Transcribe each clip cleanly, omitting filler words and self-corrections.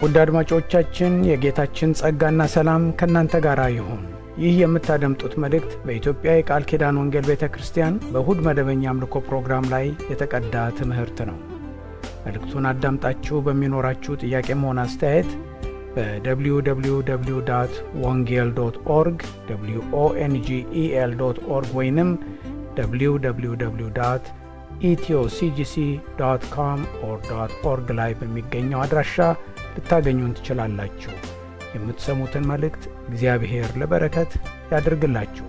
ውድ አድማጮቻችን የጌታችን ጸጋና ሰላም ከናንተ ጋር ይሁን። ይህ የምታደምጡት መልእክት በኢትዮጵያ የቃል ኪዳን ወንጌል ቤተክርስቲያን በእሁድ መደበኛ አምልኮ ፕሮግራም ላይ የተቀዳ ትምህርት ነው። መልእክቱን አዳምጣችሁ በሚኖራችሁ ጥያቄም ሆነ አስተያየት በwww.wongel.org wongel.org ወይንም www.ethioCGC.com/org ላይ በሚገኘው አድራሻ ልታገኙን ትችላላችሁ። የምትሰሙትን መልእክት እግዚአብሔር ለበረከት ያድርግላችሁ።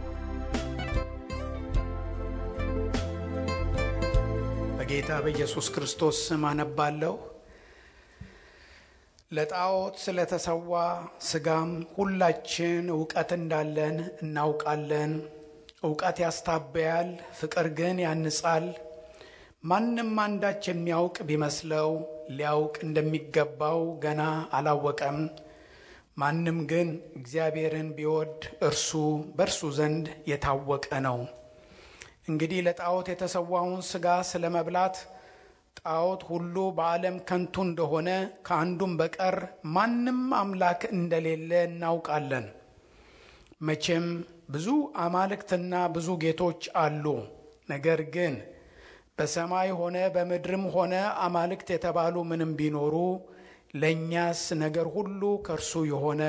በጌታ በኢየሱስ ክርስቶስ ስም አነባለሁ። ለጣዖት ስለተሰዋ ሥጋም ሁላችን ዕውቀት እንዳለን እናውቃለን። ዕውቀት ያስታበያል፣ ፍቅር ግን ያንጻል። ማንም አንዳች የሚያውቅ ቢመስለው ሊያውቅ እንደሚገባው ገና አላወቀም። ማንም ግን እግዚአብሔርን ቢወድ እርሱ በእርሱ ዘንድ የታወቀ ነው። እንግዲህ ለጣዖት የተሰዋውን ሥጋ ስለመብላት ጣዖት ሁሉ በዓለም ከንቱ እንደሆነ ከአንዱም በቀር ማንም አምላክ እንደሌለ እናውቃለን። መቼም ብዙ አማልክትና ብዙ ጌቶች አሉ። ነገር ግን በሰማይ ሆነ በምድርም ሆነ አማልክት የተባሉ ምንም ቢኖሩ ለእኛስ ነገር ሁሉ ከእርሱ የሆነ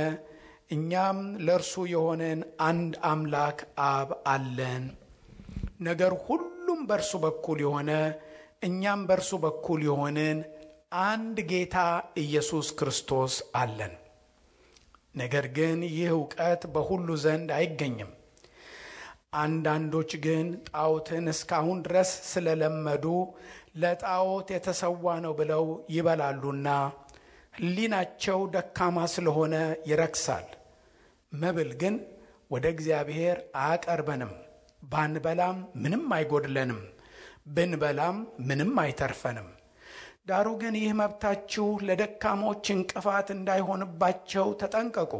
እኛም ለእርሱ የሆነን አንድ አምላክ አብ አለን። ነገር ሁሉም በእርሱ በኩል የሆነ እኛም በእርሱ በኩል የሆንን አንድ ጌታ ኢየሱስ ክርስቶስ አለን። ነገር ግን ይህ ዕውቀት በሁሉ ዘንድ አይገኝም። አንዳንዶች ግን ጣዖትን እስካሁን ድረስ ስለለመዱ ለጣዖት የተሰዋ ነው ብለው ይበላሉና ሕሊናቸው ደካማ ስለሆነ ይረክሳል። መብል ግን ወደ እግዚአብሔር አያቀርበንም። ባንበላም ምንም አይጎድለንም፣ ብንበላም ምንም አይተርፈንም። ዳሩ ግን ይህ መብታችሁ ለደካሞች እንቅፋት እንዳይሆንባቸው ተጠንቀቁ።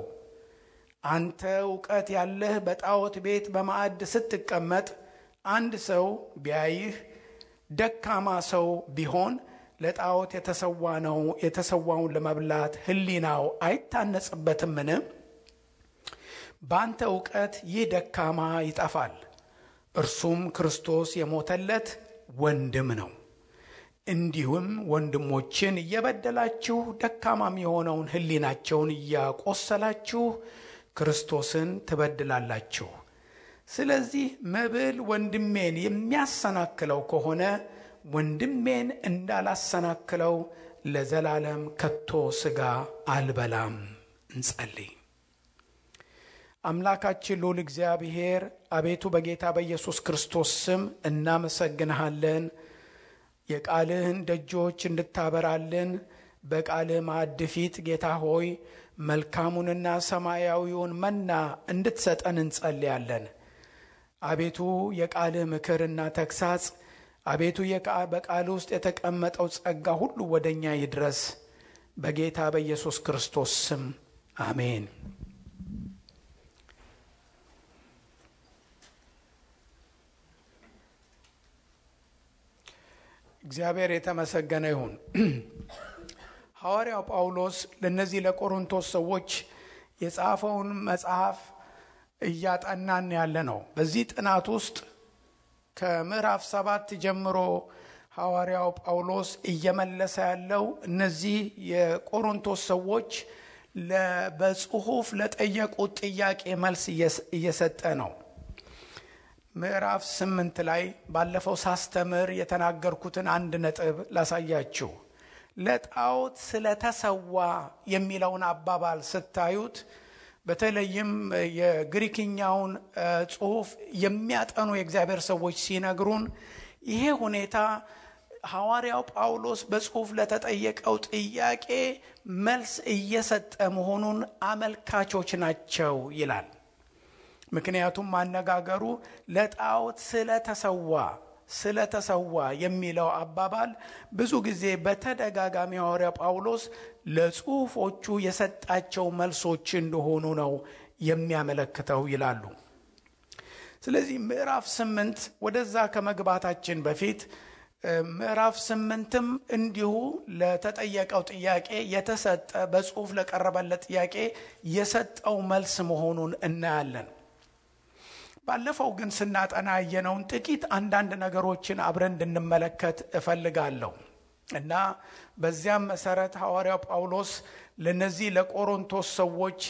አንተ ዕውቀት ያለህ በጣዖት ቤት በማዕድ ስትቀመጥ አንድ ሰው ቢያይህ ደካማ ሰው ቢሆን ለጣዖት የተሰዋውን ለመብላት ሕሊናው አይታነጽበትምን? በአንተ ዕውቀት ይህ ደካማ ይጠፋል። እርሱም ክርስቶስ የሞተለት ወንድም ነው። እንዲሁም ወንድሞችን እየበደላችሁ ደካማም የሆነውን ሕሊናቸውን እያቆሰላችሁ ክርስቶስን ትበድላላችሁ። ስለዚህ መብል ወንድሜን የሚያሰናክለው ከሆነ ወንድሜን እንዳላሰናክለው ለዘላለም ከቶ ሥጋ አልበላም። እንጸልይ። አምላካችን ልዑል እግዚአብሔር አቤቱ በጌታ በኢየሱስ ክርስቶስ ስም እናመሰግንሃለን። የቃልህን ደጆች እንድታበራልን በቃልህ ማዕድ ፊት ጌታ ሆይ መልካሙንና ሰማያዊውን መና እንድትሰጠን እንጸልያለን። አቤቱ የቃልህ ምክርና ተግሳጽ አቤቱ በቃል ውስጥ የተቀመጠው ጸጋ ሁሉ ወደኛ ይድረስ በጌታ በኢየሱስ ክርስቶስ ስም አሜን። እግዚአብሔር የተመሰገነ ይሁን። ሐዋርያው ጳውሎስ ለነዚህ ለቆሮንቶስ ሰዎች የጻፈውን መጽሐፍ እያጠናን ያለ ነው። በዚህ ጥናት ውስጥ ከምዕራፍ 7 ጀምሮ ሐዋርያው ጳውሎስ እየመለሰ ያለው እነዚህ የቆሮንቶስ ሰዎች በጽሑፍ ለጠየቁት ጥያቄ መልስ እየሰጠ ነው። ምዕራፍ 8 ላይ ባለፈው ሳስተምር የተናገርኩትን አንድ ነጥብ ላሳያችሁ። ለጣዖት ስለተሰዋ የሚለውን አባባል ስታዩት በተለይም የግሪክኛውን ጽሑፍ የሚያጠኑ የእግዚአብሔር ሰዎች ሲነግሩን ይሄ ሁኔታ ሐዋርያው ጳውሎስ በጽሑፍ ለተጠየቀው ጥያቄ መልስ እየሰጠ መሆኑን አመልካቾች ናቸው ይላል። ምክንያቱም ማነጋገሩ ለጣዖት ስለተሰዋ የሚለው አባባል ብዙ ጊዜ በተደጋጋሚ ሐዋርያው ጳውሎስ ለጽሑፎቹ የሰጣቸው መልሶች እንደሆኑ ነው የሚያመለክተው ይላሉ። ስለዚህ ምዕራፍ 8 ወደዛ ከመግባታችን በፊት ምዕራፍ 8ም እንዲሁ ለተጠየቀው ጥያቄ የተሰጠ በጽሁፍ ለቀረበለት ጥያቄ የሰጠው መልስ መሆኑን እናያለን። ባለፈው ግን ስናጠና ያየነውን ጥቂት አንዳንድ ነገሮችን አብረን እንድንመለከት እፈልጋለሁ እና በዚያም መሰረት ሐዋርያው ጳውሎስ ለነዚህ ለቆሮንቶስ ሰዎች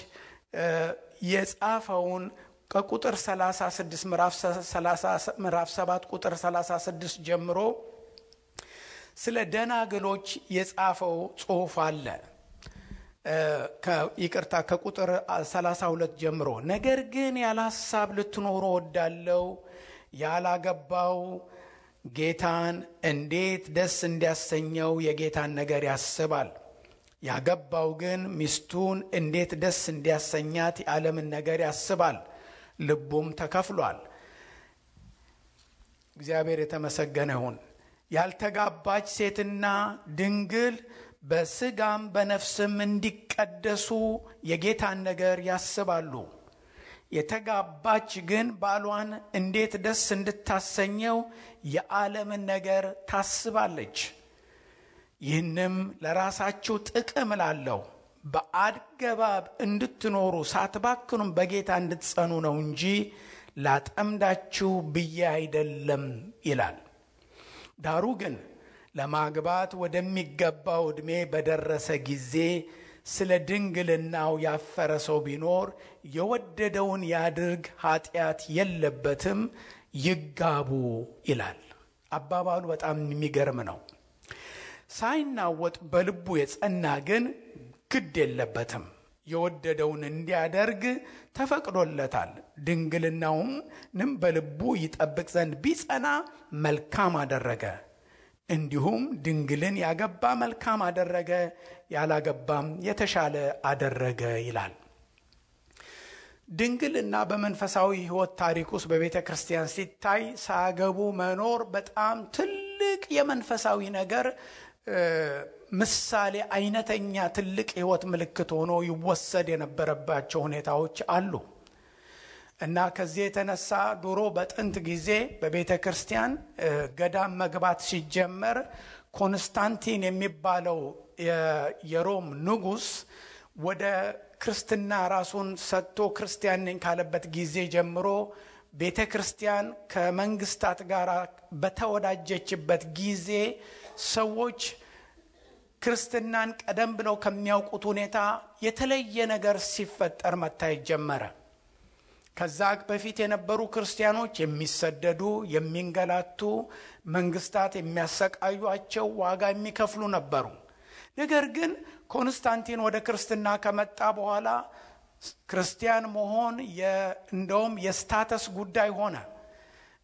የጻፈውን ከቁጥር 36 ምዕራፍ 7 ቁጥር 36 ጀምሮ ስለ ደናግሎች የጻፈው ጽሑፍ አለ። ይቅርታ ከቁጥር 32 ጀምሮ ነገር ግን ያለ ሐሳብ ልትኖሩ ወዳለው ያላገባው ጌታን እንዴት ደስ እንዲያሰኘው የጌታን ነገር ያስባል። ያገባው ግን ሚስቱን እንዴት ደስ እንዲያሰኛት የዓለምን ነገር ያስባል፣ ልቡም ተከፍሏል። እግዚአብሔር የተመሰገነ ይሁን። ያልተጋባች ሴትና ድንግል በስጋም በነፍስም እንዲቀደሱ የጌታን ነገር ያስባሉ። የተጋባች ግን ባሏን እንዴት ደስ እንድታሰኘው የዓለምን ነገር ታስባለች። ይህንም ለራሳችሁ ጥቅም እላለሁ፣ በአገባብ እንድትኖሩ ሳትባክኑም በጌታ እንድትጸኑ ነው እንጂ ላጠምዳችሁ ብዬ አይደለም ይላል። ዳሩ ግን ለማግባት ወደሚገባው ዕድሜ በደረሰ ጊዜ ስለ ድንግልናው ያፈረ ሰው ቢኖር የወደደውን ያድርግ፣ ኃጢአት የለበትም፣ ይጋቡ ይላል። አባባሉ በጣም የሚገርም ነው። ሳይናወጥ በልቡ የጸና ግን ግድ የለበትም፣ የወደደውን እንዲያደርግ ተፈቅዶለታል። ድንግልናውንም በልቡ ይጠብቅ ዘንድ ቢጸና መልካም አደረገ። እንዲሁም ድንግልን ያገባ መልካም አደረገ፣ ያላገባም የተሻለ አደረገ ይላል። ድንግልና በመንፈሳዊ ሕይወት ታሪክ ውስጥ በቤተ ክርስቲያን ሲታይ ሳያገቡ መኖር በጣም ትልቅ የመንፈሳዊ ነገር ምሳሌ፣ አይነተኛ ትልቅ ሕይወት ምልክት ሆኖ ይወሰድ የነበረባቸው ሁኔታዎች አሉ እና ከዚህ የተነሳ ድሮ በጥንት ጊዜ በቤተ ክርስቲያን ገዳም መግባት ሲጀመር ኮንስታንቲን የሚባለው የሮም ንጉሥ ወደ ክርስትና ራሱን ሰጥቶ ክርስቲያን ነኝ ካለበት ጊዜ ጀምሮ ቤተ ክርስቲያን ከመንግስታት ጋር በተወዳጀችበት ጊዜ ሰዎች ክርስትናን ቀደም ብለው ከሚያውቁት ሁኔታ የተለየ ነገር ሲፈጠር መታየት ጀመረ። ከዛ በፊት የነበሩ ክርስቲያኖች የሚሰደዱ፣ የሚንገላቱ፣ መንግስታት የሚያሰቃዩአቸው፣ ዋጋ የሚከፍሉ ነበሩ። ነገር ግን ኮንስታንቲን ወደ ክርስትና ከመጣ በኋላ ክርስቲያን መሆን እንደውም የስታተስ ጉዳይ ሆነ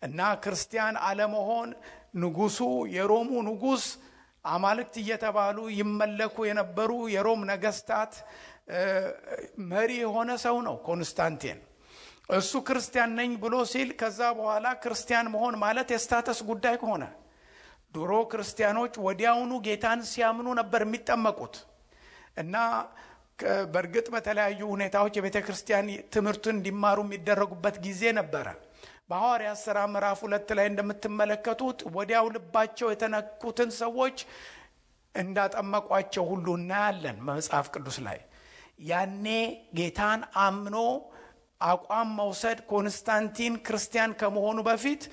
እና ክርስቲያን አለመሆን ንጉሱ፣ የሮሙ ንጉስ አማልክት እየተባሉ ይመለኩ የነበሩ የሮም ነገስታት መሪ የሆነ ሰው ነው ኮንስታንቲን። እሱ ክርስቲያን ነኝ ብሎ ሲል ከዛ በኋላ ክርስቲያን መሆን ማለት የስታተስ ጉዳይ ሆነ። ድሮ ክርስቲያኖች ወዲያውኑ ጌታን ሲያምኑ ነበር የሚጠመቁት እና በእርግጥ በተለያዩ ሁኔታዎች የቤተ ክርስቲያን ትምህርቱን እንዲማሩ የሚደረጉበት ጊዜ ነበረ። በሐዋርያት ሥራ ምዕራፍ 2 ላይ እንደምትመለከቱት ወዲያው ልባቸው የተነኩትን ሰዎች እንዳጠመቋቸው ሁሉ እናያለን በመጽሐፍ ቅዱስ ላይ። ያኔ ጌታን አምኖ አቋም መውሰድ ኮንስታንቲን ክርስቲያን ከመሆኑ በፊት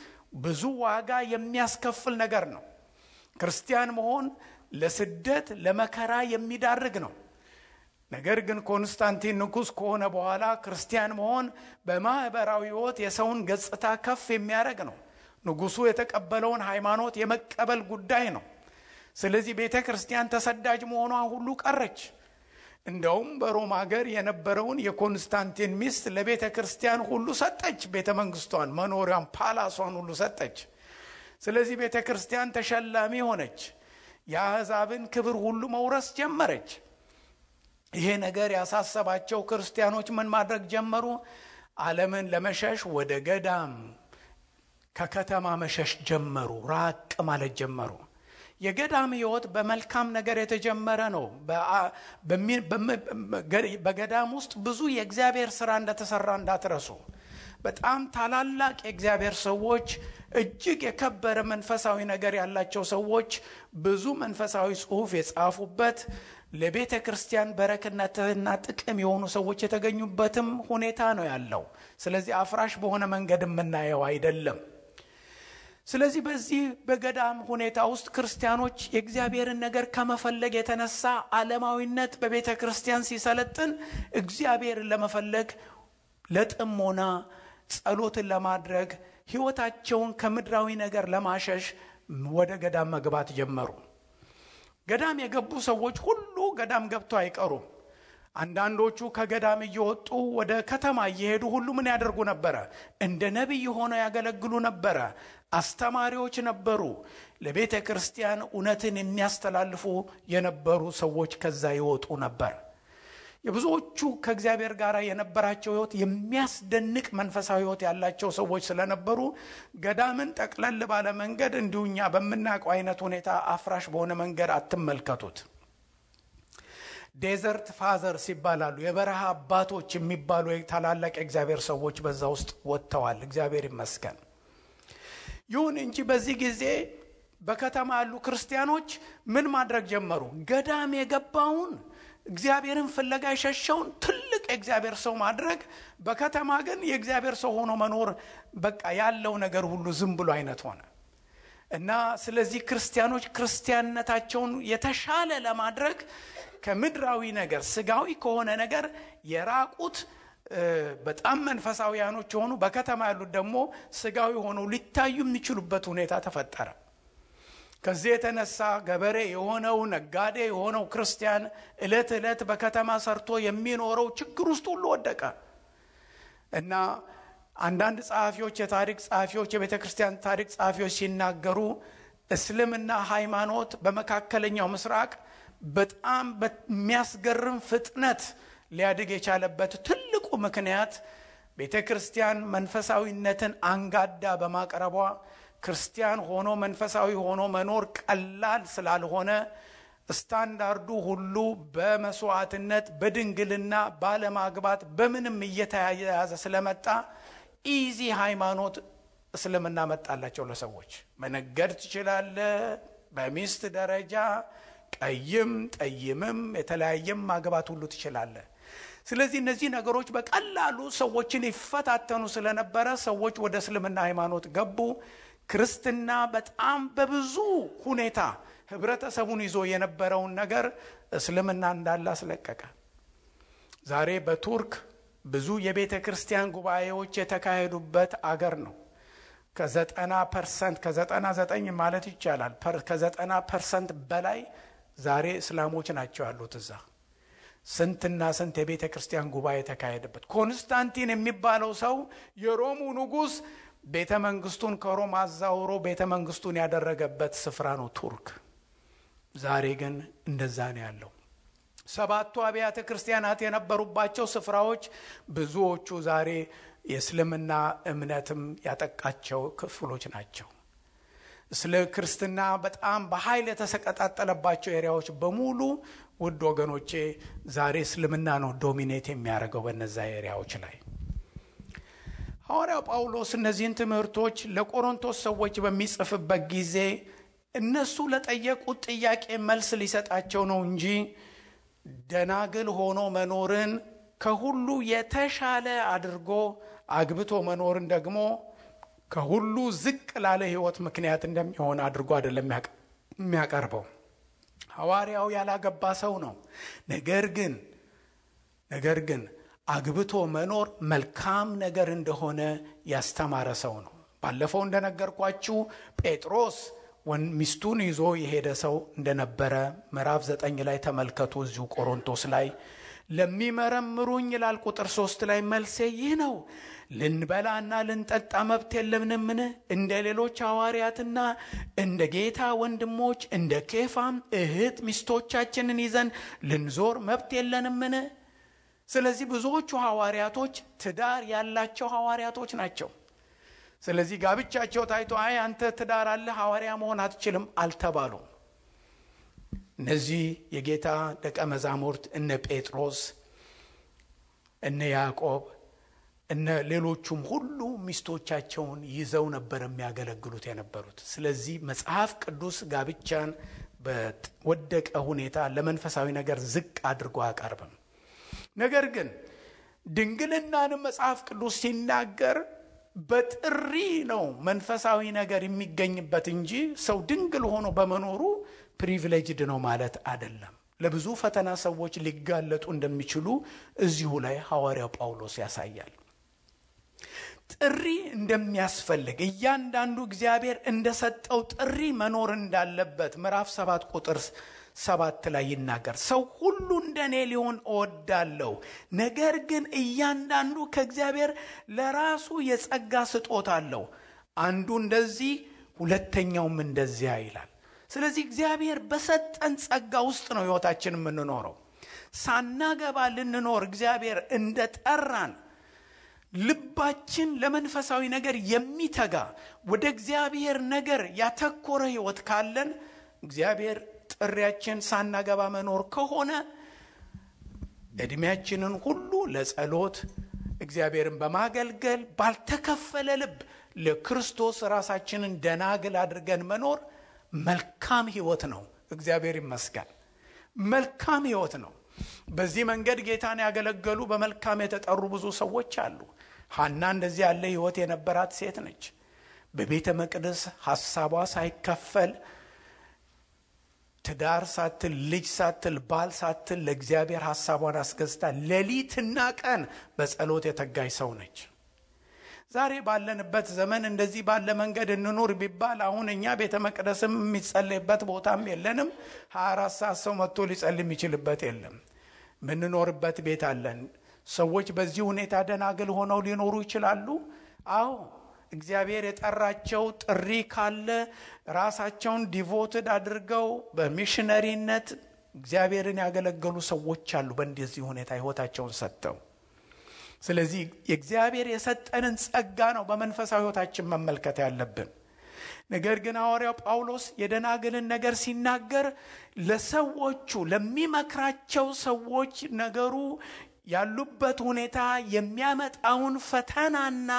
ብዙ ዋጋ የሚያስከፍል ነገር ነው። ክርስቲያን መሆን ለስደት ለመከራ የሚዳርግ ነው። ነገር ግን ኮንስታንቲን ንጉስ ከሆነ በኋላ ክርስቲያን መሆን በማህበራዊ ሕይወት የሰውን ገጽታ ከፍ የሚያደርግ ነው። ንጉሱ የተቀበለውን ሃይማኖት የመቀበል ጉዳይ ነው። ስለዚህ ቤተ ክርስቲያን ተሰዳጅ መሆኗ ሁሉ ቀረች። እንደውም በሮም ሀገር የነበረውን የኮንስታንቲን ሚስት ለቤተ ክርስቲያን ሁሉ ሰጠች። ቤተ መንግስቷን፣ መኖሪያውን፣ ፓላሷን ሁሉ ሰጠች። ስለዚህ ቤተ ክርስቲያን ተሸላሚ ሆነች። የአሕዛብን ክብር ሁሉ መውረስ ጀመረች። ይሄ ነገር ያሳሰባቸው ክርስቲያኖች ምን ማድረግ ጀመሩ? ዓለምን ለመሸሽ ወደ ገዳም ከከተማ መሸሽ ጀመሩ። ራቅ ማለት ጀመሩ። የገዳም ሕይወት በመልካም ነገር የተጀመረ ነው። በገዳም ውስጥ ብዙ የእግዚአብሔር ሥራ እንደተሰራ እንዳትረሱ። በጣም ታላላቅ የእግዚአብሔር ሰዎች፣ እጅግ የከበረ መንፈሳዊ ነገር ያላቸው ሰዎች ብዙ መንፈሳዊ ጽሑፍ የጻፉበት ለቤተ ክርስቲያን በረከትና ጥቅም የሆኑ ሰዎች የተገኙበትም ሁኔታ ነው ያለው። ስለዚህ አፍራሽ በሆነ መንገድ የምናየው አይደለም። ስለዚህ በዚህ በገዳም ሁኔታ ውስጥ ክርስቲያኖች የእግዚአብሔርን ነገር ከመፈለግ የተነሳ ዓለማዊነት በቤተ ክርስቲያን ሲሰለጥን እግዚአብሔርን ለመፈለግ ለጥሞና ጸሎትን ለማድረግ ሕይወታቸውን ከምድራዊ ነገር ለማሸሽ ወደ ገዳም መግባት ጀመሩ። ገዳም የገቡ ሰዎች ሁሉ ገዳም ገብተው አይቀሩም። አንዳንዶቹ ከገዳም እየወጡ ወደ ከተማ እየሄዱ ሁሉ ምን ያደርጉ ነበረ? እንደ ነቢይ ሆነው ያገለግሉ ነበረ። አስተማሪዎች ነበሩ። ለቤተ ክርስቲያን እውነትን የሚያስተላልፉ የነበሩ ሰዎች ከዛ ይወጡ ነበር። የብዙዎቹ ከእግዚአብሔር ጋር የነበራቸው ሕይወት የሚያስደንቅ መንፈሳዊ ሕይወት ያላቸው ሰዎች ስለነበሩ ገዳምን ጠቅለል ባለ መንገድ እንዲሁኛ በምናውቀው አይነት ሁኔታ አፍራሽ በሆነ መንገድ አትመልከቱት። ዴዘርት ፋዘርስ ይባላሉ። የበረሃ አባቶች የሚባሉ ታላላቅ የእግዚአብሔር ሰዎች በዛ ውስጥ ወጥተዋል። እግዚአብሔር ይመስገን። ይሁን እንጂ በዚህ ጊዜ በከተማ ያሉ ክርስቲያኖች ምን ማድረግ ጀመሩ? ገዳም የገባውን እግዚአብሔርን ፍለጋ የሸሸውን ትልቅ የእግዚአብሔር ሰው ማድረግ፣ በከተማ ግን የእግዚአብሔር ሰው ሆኖ መኖር በቃ ያለው ነገር ሁሉ ዝም ብሎ አይነት ሆነ እና ስለዚህ ክርስቲያኖች ክርስቲያንነታቸውን የተሻለ ለማድረግ ከምድራዊ ነገር ስጋዊ ከሆነ ነገር የራቁት በጣም መንፈሳዊያኖች ሆኑ፣ በከተማ ያሉት ደግሞ ስጋዊ ሆነው ሊታዩ የሚችሉበት ሁኔታ ተፈጠረ። ከዚህ የተነሳ ገበሬ የሆነው ነጋዴ የሆነው ክርስቲያን ዕለት ዕለት በከተማ ሰርቶ የሚኖረው ችግር ውስጥ ሁሉ ወደቀ እና አንዳንድ ጸሐፊዎች፣ የታሪክ ጸሐፊዎች፣ የቤተ ክርስቲያን ታሪክ ጸሐፊዎች ሲናገሩ እስልምና ሃይማኖት በመካከለኛው ምስራቅ በጣም በሚያስገርም ፍጥነት ሊያድግ የቻለበት ትልቁ ምክንያት ቤተ ክርስቲያን መንፈሳዊነትን አንጋዳ በማቅረቧ ክርስቲያን ሆኖ መንፈሳዊ ሆኖ መኖር ቀላል ስላልሆነ ስታንዳርዱ ሁሉ በመስዋዕትነት በድንግልና ባለማግባት በምንም እየተያያዘ ስለመጣ ኢዚ ሃይማኖት እስልምና መጣላቸው። ለሰዎች መነገድ ትችላለህ፣ በሚስት ደረጃ ቀይም ጠይምም የተለያየም ማግባት ሁሉ ትችላለህ። ስለዚህ እነዚህ ነገሮች በቀላሉ ሰዎችን ይፈታተኑ ስለነበረ ሰዎች ወደ እስልምና ሃይማኖት ገቡ። ክርስትና በጣም በብዙ ሁኔታ ህብረተሰቡን ይዞ የነበረውን ነገር እስልምና እንዳለ አስለቀቀ። ዛሬ በቱርክ ብዙ የቤተ ክርስቲያን ጉባኤዎች የተካሄዱበት አገር ነው። ከ90% ከ99 ማለት ይቻላል ከ90% በላይ ዛሬ እስላሞች ናቸው ያሉት እዛ። ስንትና ስንት የቤተ ክርስቲያን ጉባኤ ተካሄደበት። ኮንስታንቲን የሚባለው ሰው የሮሙ ንጉስ ቤተ መንግስቱን ከሮም አዛውሮ ቤተ መንግስቱን ያደረገበት ስፍራ ነው ቱርክ። ዛሬ ግን እንደዛ ነው ያለው። 7ቱ አብያተ ክርስቲያናት የነበሩባቸው ስፍራዎች ብዙዎቹ ዛሬ የእስልምና እምነትም ያጠቃቸው ክፍሎች ናቸው። ስለ ክርስትና በጣም በኃይል የተሰቀጣጠለባቸው ኤሪያዎች በሙሉ ውድ ወገኖቼ ዛሬ እስልምና ነው ዶሚኔት የሚያደርገው በእነዛ ኤሪያዎች ላይ። ሐዋርያው ጳውሎስ እነዚህን ትምህርቶች ለቆሮንቶስ ሰዎች በሚጽፍበት ጊዜ እነሱ ለጠየቁት ጥያቄ መልስ ሊሰጣቸው ነው እንጂ ደናግል ሆኖ መኖርን ከሁሉ የተሻለ አድርጎ አግብቶ መኖርን ደግሞ ከሁሉ ዝቅ ላለ ህይወት ምክንያት እንደሚሆን አድርጎ አይደለም የሚያቀርበው። ሐዋርያው ያላገባ ሰው ነው። ነገር ግን አግብቶ መኖር መልካም ነገር እንደሆነ ያስተማረ ሰው ነው። ባለፈው እንደነገርኳችሁ ጴጥሮስ ሚስቱን ይዞ የሄደ ሰው እንደነበረ ምዕራፍ 9 ላይ ተመልከቱ። እዚሁ ቆሮንቶስ ላይ ለሚመረምሩኝ ይላል ቁጥር 3 ላይ መልሴ ይህ ነው፣ ልንበላና ልንጠጣ መብት የለምንምን? እንደ ሌሎች ሐዋርያትና እንደ ጌታ ወንድሞች እንደ ኬፋም እህት ሚስቶቻችንን ይዘን ልንዞር መብት የለንምን? ስለዚህ ብዙዎቹ ሐዋርያቶች ትዳር ያላቸው ሐዋርያቶች ናቸው። ስለዚህ ጋብቻቸው ታይቶ አይ አንተ ትዳር አለ ሐዋርያ መሆን አትችልም አልተባሉም። እነዚህ የጌታ ደቀ መዛሙርት እነ ጴጥሮስ እነ ያዕቆብ እነ ሌሎቹም ሁሉ ሚስቶቻቸውን ይዘው ነበር የሚያገለግሉት የነበሩት። ስለዚህ መጽሐፍ ቅዱስ ጋብቻን በወደቀ ሁኔታ ለመንፈሳዊ ነገር ዝቅ አድርጎ አያቀርብም። ነገር ግን ድንግልናንም መጽሐፍ ቅዱስ ሲናገር በጥሪ ነው መንፈሳዊ ነገር የሚገኝበት እንጂ ሰው ድንግል ሆኖ በመኖሩ ፕሪቪሌጅድ ነው ማለት አይደለም። ለብዙ ፈተና ሰዎች ሊጋለጡ እንደሚችሉ እዚሁ ላይ ሐዋርያው ጳውሎስ ያሳያል። ጥሪ እንደሚያስፈልግ እያንዳንዱ እግዚአብሔር እንደሰጠው ጥሪ መኖር እንዳለበት ምዕራፍ 7 ቁጥር 7 ላይ ይናገር። ሰው ሁሉ እንደኔ ሊሆን እወዳለሁ፣ ነገር ግን እያንዳንዱ ከእግዚአብሔር ለራሱ የጸጋ ስጦታ አለው፣ አንዱ እንደዚህ ሁለተኛውም እንደዚያ ይላል። ስለዚህ እግዚአብሔር በሰጠን ጸጋ ውስጥ ነው ሕይወታችንን የምንኖረው። ሳናገባ ልንኖር እግዚአብሔር እንደጠራን ልባችን ለመንፈሳዊ ነገር የሚተጋ ወደ እግዚአብሔር ነገር ያተኮረ ሕይወት ካለን እግዚአብሔር ጥሪያችን ሳናገባ መኖር ከሆነ እድሜያችንን ሁሉ ለጸሎት እግዚአብሔርን በማገልገል ባልተከፈለ ልብ ለክርስቶስ ራሳችንን ደናግል አድርገን መኖር መልካም ሕይወት ነው። እግዚአብሔር ይመስገን፣ መልካም ሕይወት ነው። በዚህ መንገድ ጌታን ያገለገሉ በመልካም የተጠሩ ብዙ ሰዎች አሉ። ሐና እንደዚህ ያለ ሕይወት የነበራት ሴት ነች። በቤተ መቅደስ ሐሳቧ ሳይከፈል ትዳር ሳትል ልጅ ሳትል ባል ሳትል ለእግዚአብሔር ሐሳቧን አስገዝታ ሌሊትና ቀን በጸሎት የተጋይ ሰው ነች። ዛሬ ባለንበት ዘመን እንደዚህ ባለ መንገድ እንኑር ቢባል አሁን እኛ ቤተ መቅደስም የሚጸልይበት ቦታም የለንም። 24 ሰዓት ሰው መጥቶ ሊጸልይ የሚችልበት የለም። ምንኖርበት ቤት አለን። ሰዎች በዚህ ሁኔታ ደናግል ሆነው ሊኖሩ ይችላሉ። አዎ እግዚአብሔር የጠራቸው ጥሪ ካለ ራሳቸውን ዲቮትድ አድርገው በሚሽነሪነት እግዚአብሔርን ያገለገሉ ሰዎች አሉ፣ በእንደዚህ ሁኔታ ሕይወታቸውን ሰጥተው። ስለዚህ የእግዚአብሔር የሰጠንን ጸጋ ነው በመንፈሳዊ ሕይወታችን መመልከት ያለብን። ነገር ግን ሐዋርያው ጳውሎስ የደናግልን ነገር ሲናገር ለሰዎቹ ለሚመክራቸው ሰዎች ነገሩ ያሉበት ሁኔታ የሚያመጣውን ፈተናና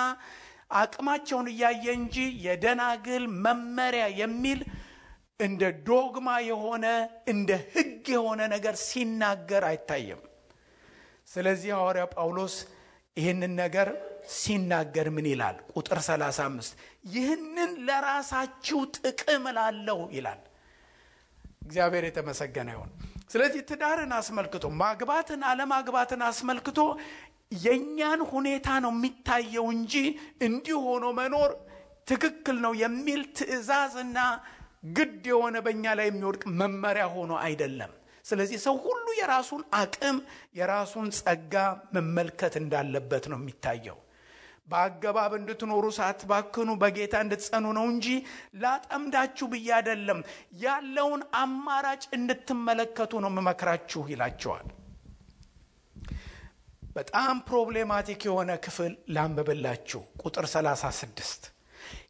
አቅማቸውን እያየ እንጂ የደናግል መመሪያ የሚል እንደ ዶግማ የሆነ እንደ ሕግ የሆነ ነገር ሲናገር አይታየም። ስለዚህ ሐዋርያው ጳውሎስ ይህንን ነገር ሲናገር ምን ይላል? ቁጥር 35 ይህንን ለራሳችሁ ጥቅም ላለው ይላል። እግዚአብሔር የተመሰገነ ይሁን። ስለዚህ ትዳርን አስመልክቶ ማግባትን አለማግባትን አስመልክቶ የኛን ሁኔታ ነው የሚታየው እንጂ እንዲህ ሆኖ መኖር ትክክል ነው የሚል ትዕዛዝና ግድ የሆነ በእኛ ላይ የሚወድቅ መመሪያ ሆኖ አይደለም። ስለዚህ ሰው ሁሉ የራሱን አቅም የራሱን ጸጋ መመልከት እንዳለበት ነው የሚታየው። በአገባብ እንድትኖሩ ሳትባክኑ በጌታ እንድትጸኑ ነው እንጂ ላጠምዳችሁ ብዬ አይደለም፣ ያለውን አማራጭ እንድትመለከቱ ነው መመክራችሁ ይላቸዋል። በጣም ፕሮብሌማቲክ የሆነ ክፍል ላንብብላችሁ። ቁጥር 36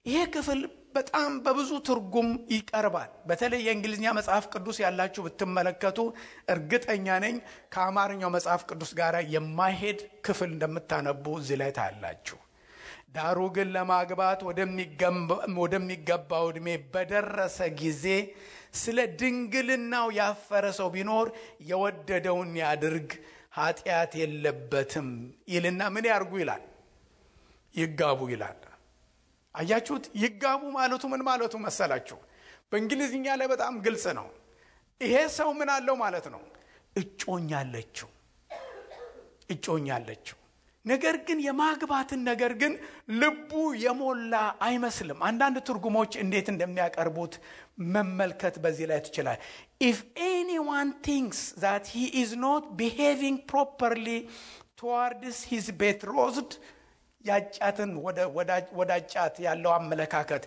ይሄ ክፍል በጣም በብዙ ትርጉም ይቀርባል። በተለይ የእንግሊዝኛ መጽሐፍ ቅዱስ ያላችሁ ብትመለከቱ እርግጠኛ ነኝ ከአማርኛው መጽሐፍ ቅዱስ ጋር የማይሄድ ክፍል እንደምታነቡ እዚህ ላይ ታያላችሁ። ዳሩ ግን ለማግባት ወደሚገባው ዕድሜ በደረሰ ጊዜ ስለ ድንግልናው ያፈረ ሰው ቢኖር የወደደውን ያድርግ፣ ኃጢአት የለበትም ይልና ምን ያርጉ ይላል? ይጋቡ ይላል። አያችሁት? ይጋቡ ማለቱ ምን ማለቱ መሰላችሁ? በእንግሊዝኛ ላይ በጣም ግልጽ ነው። ይሄ ሰው ምን አለው ማለት ነው? እጮኛ አለችው። ነገር ግን የማግባትን ነገር ግን ልቡ የሞላ አይመስልም። አንዳንድ ትርጉሞች እንዴት እንደሚያቀርቡት መመልከት በዚህ ላይ ትችላል። if anyone thinks that he is not behaving properly towards his betrothed ያጫትን ወዳጫት ያለው አመለካከት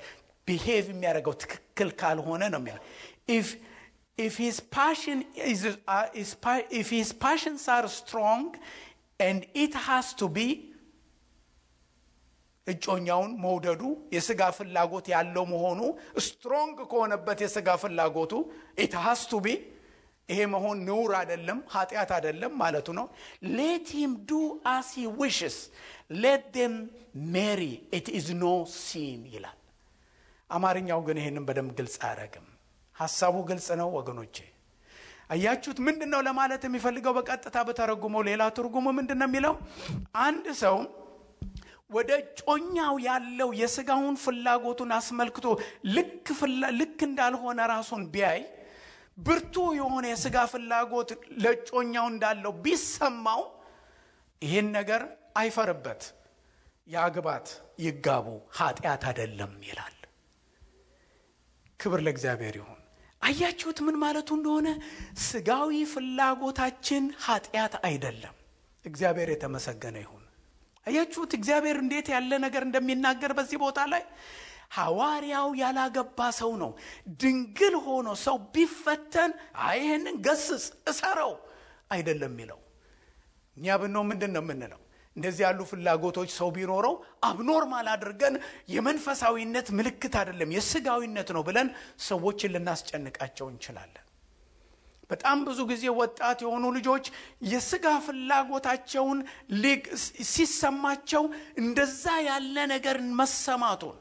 ቢሄቭ የሚያደርገው ትክክል ካልሆነ ነው የሚለው። if his passions are strong and it has to be እጮኛውን መውደዱ የሥጋ ፍላጎት ያለው መሆኑ ስትሮንግ ከሆነበት የሥጋ ፍላጎቱ it has to be ይሄ መሆን ነውር አይደለም፣ ኃጢአት አይደለም ማለቱ ነው። let him do as he wishes, let them marry, it is no sin ይላል። አማርኛው ግን ይሄንን በደንብ ግልጽ አያደርግም። ሐሳቡ ግልጽ ነው ወገኖቼ። አያችሁት ምንድነው ለማለት የሚፈልገው? በቀጥታ በተረጉመው ሌላ ትርጉሙ ምንድነው የሚለው? አንድ ሰው ወደ ጮኛው ያለው የሥጋውን ፍላጎቱን አስመልክቶ ልክ እንዳልሆነ ራሱን ቢያይ፣ ብርቱ የሆነ የሥጋ ፍላጎት ለጮኛው እንዳለው ቢሰማው፣ ይሄን ነገር አይፈርበት፣ ያግባት፣ ይጋቡ፣ ኃጢአት አይደለም ይላል። ክብር ለእግዚአብሔር ይሁን። አያችሁት ምን ማለቱ እንደሆነ? ሥጋዊ ፍላጎታችን ኃጢአት አይደለም። እግዚአብሔር የተመሰገነ ይሁን። አያችሁት እግዚአብሔር እንዴት ያለ ነገር እንደሚናገር በዚህ ቦታ ላይ። ሐዋርያው ያላገባ ሰው ነው። ድንግል ሆኖ ሰው ቢፈተን ይሄንን ገስጽ እሰረው አይደለም የሚለው። እኛ ብንሆን ምንድን ነው የምንለው? እንደዚህ ያሉ ፍላጎቶች ሰው ቢኖረው አብኖርማል አድርገን የመንፈሳዊነት ምልክት አይደለም የሥጋዊነት ነው ብለን ሰዎችን ልናስጨንቃቸው እንችላለን። በጣም ብዙ ጊዜ ወጣት የሆኑ ልጆች የሥጋ ፍላጎታቸውን ሲሰማቸው እንደዛ ያለ ነገር መሰማቱን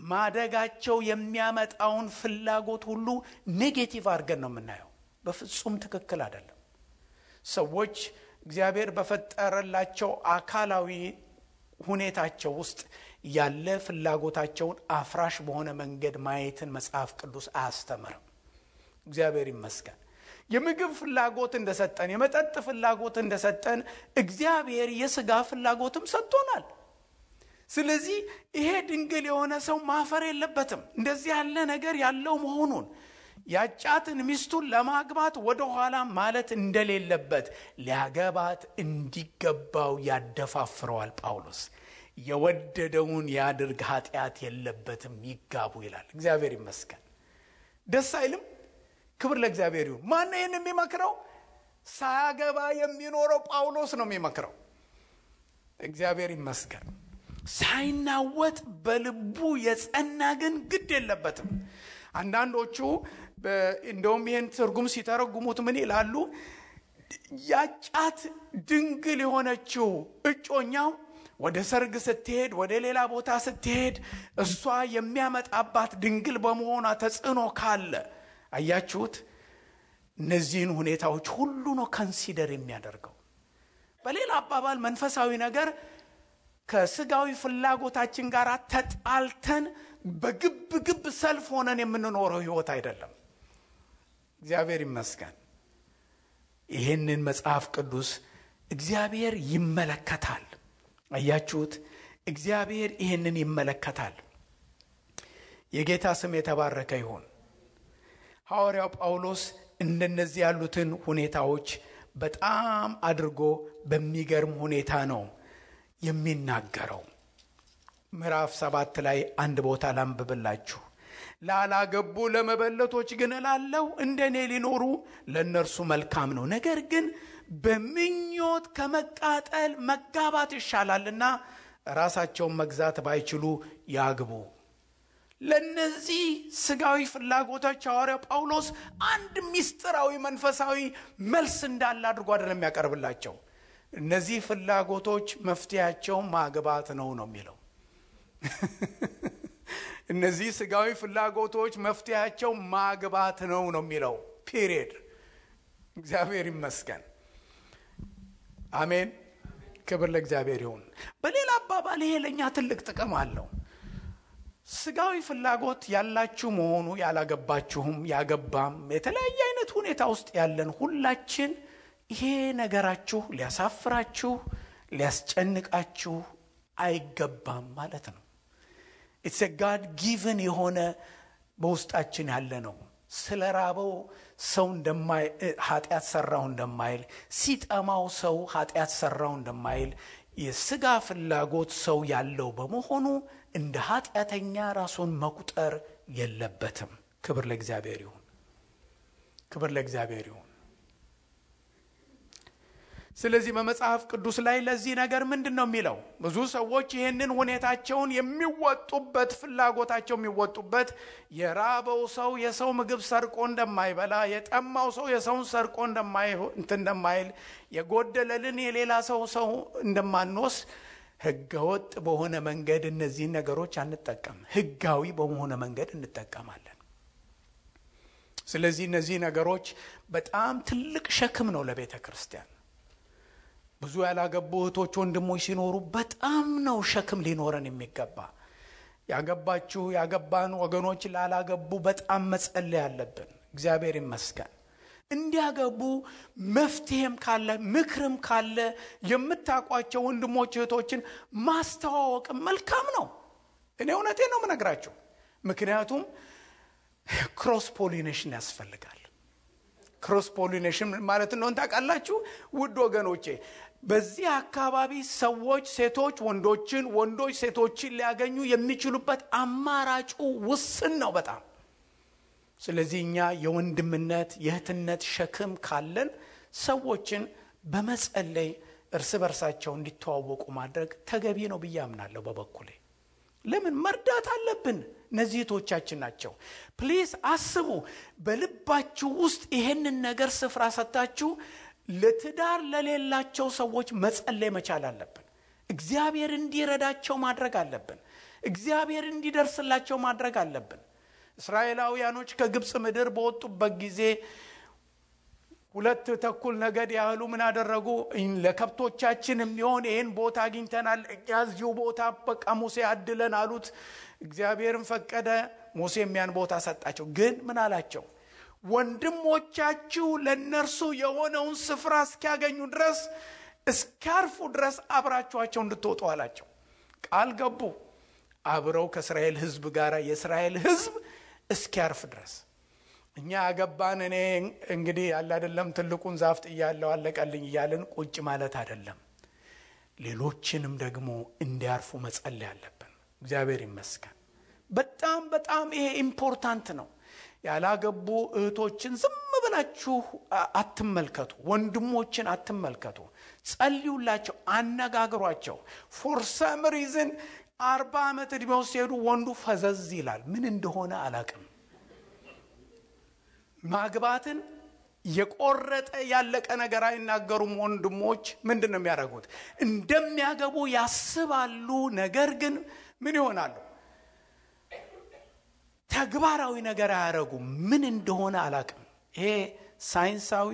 ማደጋቸው የሚያመጣውን ፍላጎት ሁሉ ኔጌቲቭ አድርገን ነው የምናየው። በፍጹም ትክክል አይደለም። ሰዎች እግዚአብሔር በፈጠረላቸው አካላዊ ሁኔታቸው ውስጥ ያለ ፍላጎታቸውን አፍራሽ በሆነ መንገድ ማየትን መጽሐፍ ቅዱስ አያስተምርም። እግዚአብሔር ይመስገን። የምግብ ፍላጎት እንደሰጠን፣ የመጠጥ ፍላጎት እንደሰጠን እግዚአብሔር የሥጋ ፍላጎትም ሰጥቶናል። ስለዚህ ይሄ ድንግል የሆነ ሰው ማፈር የለበትም እንደዚህ ያለ ነገር ያለው መሆኑን። ያጫትን ሚስቱን ለማግባት ወደ ኋላ ማለት እንደሌለበት ሊያገባት እንዲገባው ያደፋፍረዋል ጳውሎስ። የወደደውን ያድርግ፣ ኃጢአት የለበትም፣ ይጋቡ ይላል። እግዚአብሔር ይመስገን። ደስ አይልም? ክብር ለእግዚአብሔር ይሁን። ማን ነው የሚመክረው? ሳያገባ የሚኖረው ጳውሎስ ነው የሚመክረው። እግዚአብሔር ይመስገን። ሳይናወጥ በልቡ የጸና ግን ግድ የለበትም። አንዳንዶቹ እንደውም ይህን ትርጉም ሲተረጉሙት ምን ይላሉ? ያጫት ድንግል የሆነችው እጮኛው ወደ ሰርግ ስትሄድ፣ ወደ ሌላ ቦታ ስትሄድ እሷ የሚያመጣባት ድንግል በመሆኗ ተጽዕኖ ካለ፣ አያችሁት እነዚህን ሁኔታዎች ሁሉ ነው ኮንሲደር የሚያደርገው። በሌላ አባባል መንፈሳዊ ነገር ከሥጋዊ ፍላጎታችን ጋር ተጣልተን በግብ ሰልፍ ሆነን የምንኖረው ሕይወት አይደለም። እግዚአብሔር ይመስገን። ይህንን መጽሐፍ ቅዱስ እግዚአብሔር ይመለከታል። አያችሁት እግዚአብሔር ይህንን ይመለከታል። የጌታ ስም የተባረከ ይሁን። ሐዋርያው ጳውሎስ እንደነዚህ ያሉትን ሁኔታዎች በጣም አድርጎ በሚገርም ሁኔታ ነው የሚናገረው። ምዕራፍ 7 ላይ አንድ ቦታ ላንብብላችሁ። ላላገቡ ለመበለቶች ግን እላለሁ እንደኔ ሊኖሩ ለእነርሱ መልካም ነው። ነገር ግን በምኞት ከመቃጠል መጋባት ይሻላልና ራሳቸውን መግዛት ባይችሉ ያግቡ። ለነዚህ ሥጋዊ ፍላጎቶች ሐዋርያው ጳውሎስ አንድ ሚስጥራዊ መንፈሳዊ መልስ እንዳለ አድርጎ አይደለም የሚያቀርብላቸው። እነዚህ ፍላጎቶች መፍትያቸው ማግባት ነው የሚለው። እነዚህ ሥጋዊ ፍላጎቶች መፍትያቸው ማግባት ነው የሚለው ፒሪየድ። እግዚአብሔር ይመስገን። አሜን። ክብር ለእግዚአብሔር ይሁን። በሌላ አባባል ይሄ ለኛ ትልቅ ጥቅም አለው። ሥጋዊ ፍላጎት ያላችሁ መሆኑ ያላገባችሁም ያገባም የተለያየ አይነት ሁኔታ ውስጥ ያለን ሁላችን ይሄ ነገራችሁ ሊያሳፍራችሁ ሊያስጨንቃችሁ አይገባም ማለት ነው። it's a God given የሆነ በውስጣችን ያለ ነው። ስለራበው ሰው ኃጢአት ሰራው እንደማይል፣ ሲጠማው ሰው ኃጢአት ሰራው እንደማይል የሥጋ ፍላጎት ሰው ያለው በመሆኑ እንደ ኃጢአተኛ ራሱን መቁጠር የለበትም። ክብር ለእግዚአብሔር ይሁን። ክብር ለእግዚአብሔር ይሁን። ስለዚህ በመጽሐፍ ቅዱስ ላይ ለዚህ ነገር ምንድነው የሚለው? ብዙ ሰዎች ይህንን ሁኔታቸውን የሚወጡበት ፍላጎታቸው የሚወጡበት የራበው ሰው የሰው ምግብ ሰርቆ እንደማይበላ፣ የጠማው ሰው የሰውን ሰርቆ እንደማይል፣ የጎደለልን የሌላ ሰው እንደማንወስድ ህገወጥ በሆነ መንገድ እነዚህን ነገሮች አንጠቀም፣ ህጋዊ በሆነ መንገድ እንጠቀማለን። ስለዚህ እነዚህ ነገሮች በጣም ትልቅ ሸክም ነው ለቤተ ክርስቲያን። ብዙ ያላገቡ እህቶች ወንድሞች ሲኖሩ በጣም ነው ሸክም ሊኖረን የሚገባ። ያገባችሁ ያገባን ወገኖች ላላገቡ በጣም መጸለይ አለብን። እግዚአብሔር ይመስገን እንዲያገቡ መፍትሄም ካለ ምክርም ካለ የምታቋቸው ወንድሞች እህቶችን ማስተዋወቅ መልካም ነው። እኔ እውነቴን ነው የምነግራችሁ። ምክንያቱም ክሮስ ፖሊኔሽን ያስፈልጋል። ክሮስ ፖሊኔሽን ማለት ነው ታውቃላችሁ ውድ ወገኖቼ፣ በዚህ አካባቢ ሰዎች ሴቶች ወንዶችን፣ ወንዶች ሴቶችን ሊያገኙ የሚችሉበት አማራጩ ውስን ነው በጣም። ስለዚህ እኛ የወንድምነት የእህትነት ሸክም ካለን ሰዎችን በመጸለይ እርስ በርሳቸው እንዲተዋወቁ ማድረግ ተገቢ ነው ብዬ አምናለሁ በበኩሌ። ለምን መርዳት አለብን? እነዚህ እህቶቻችን ናቸው። ፕሊዝ አስቡ፣ በልባችሁ ውስጥ ይሄንን ነገር ስፍራ ሰጣችሁ ለትዳር ለሌላቸው ሰዎች መጸለይ መቻል አለብን። እግዚአብሔር እንዲረዳቸው ማድረግ አለብን። እግዚአብሔር እንዲደርስላቸው ማድረግ አለብን። እስራኤላውያኖች ከግብጽ ምድር በወጡበት ጊዜ 2 ተኩል ነገድ ያህሉ ምን አደረጉ? ለከብቶቻችን የሚሆን ይሄን ቦታ አግኝተናል፣ እዚሁ ቦታ በቃ ሙሴ አድለን አሉት። እግዚአብሔርም ፈቀደ፣ ሙሴም ያን ቦታ ሰጣቸው። ግን ምን አላቸው? ወንድሞቻችሁ ለነርሱ የሆነውን ስፍራ እስኪያገኙ ድረስ እስካርፉ ድረስ አብራችኋቸው እንድትወጡ አላቸው። ቃል ገቡ አብረው ከእስራኤል ሕዝብ ጋር የእስራኤል ሕዝብ እስኪያርፍ ድረስ። እኛ ያገባን እኔ እንግዲህ ያለ አይደለም ትልቁን ዛፍ ጥያለሁ አለቀልኝ እያልን ቁጭ ማለት አይደለም። ሌሎችንም ደግሞ እንዲያርፉ መጸለይ አለብን። እግዚአብሔር ይመስገን። በጣም በጣም ይሄ ኢምፖርታንት ነው። ያላገቡ እህቶችን ዝም ብላችሁ አትመልከቱ፣ ወንድሞችን አትመልከቱ። ጸልዩላቸው፣ አነጋግሯቸው። ፎር ሰም ሪዝን 40 ዓመት እድሜው ሲሄዱ ወንዱ ፈዘዝ ይላል። ምን እንደሆነ አላቅም። ማግባትን የቆረጠ ያለቀ ነገር አይናገሩም። ወንድሞች ምንድነው የሚያደርጉት? እንደሚያገቡ ያስባሉ። ነገር ግን ምን ይሆናሉ? ተግባራዊ ነገር አያረጉም። ምን እንደሆነ አላቅም። ይሄ ሳይንሳዊ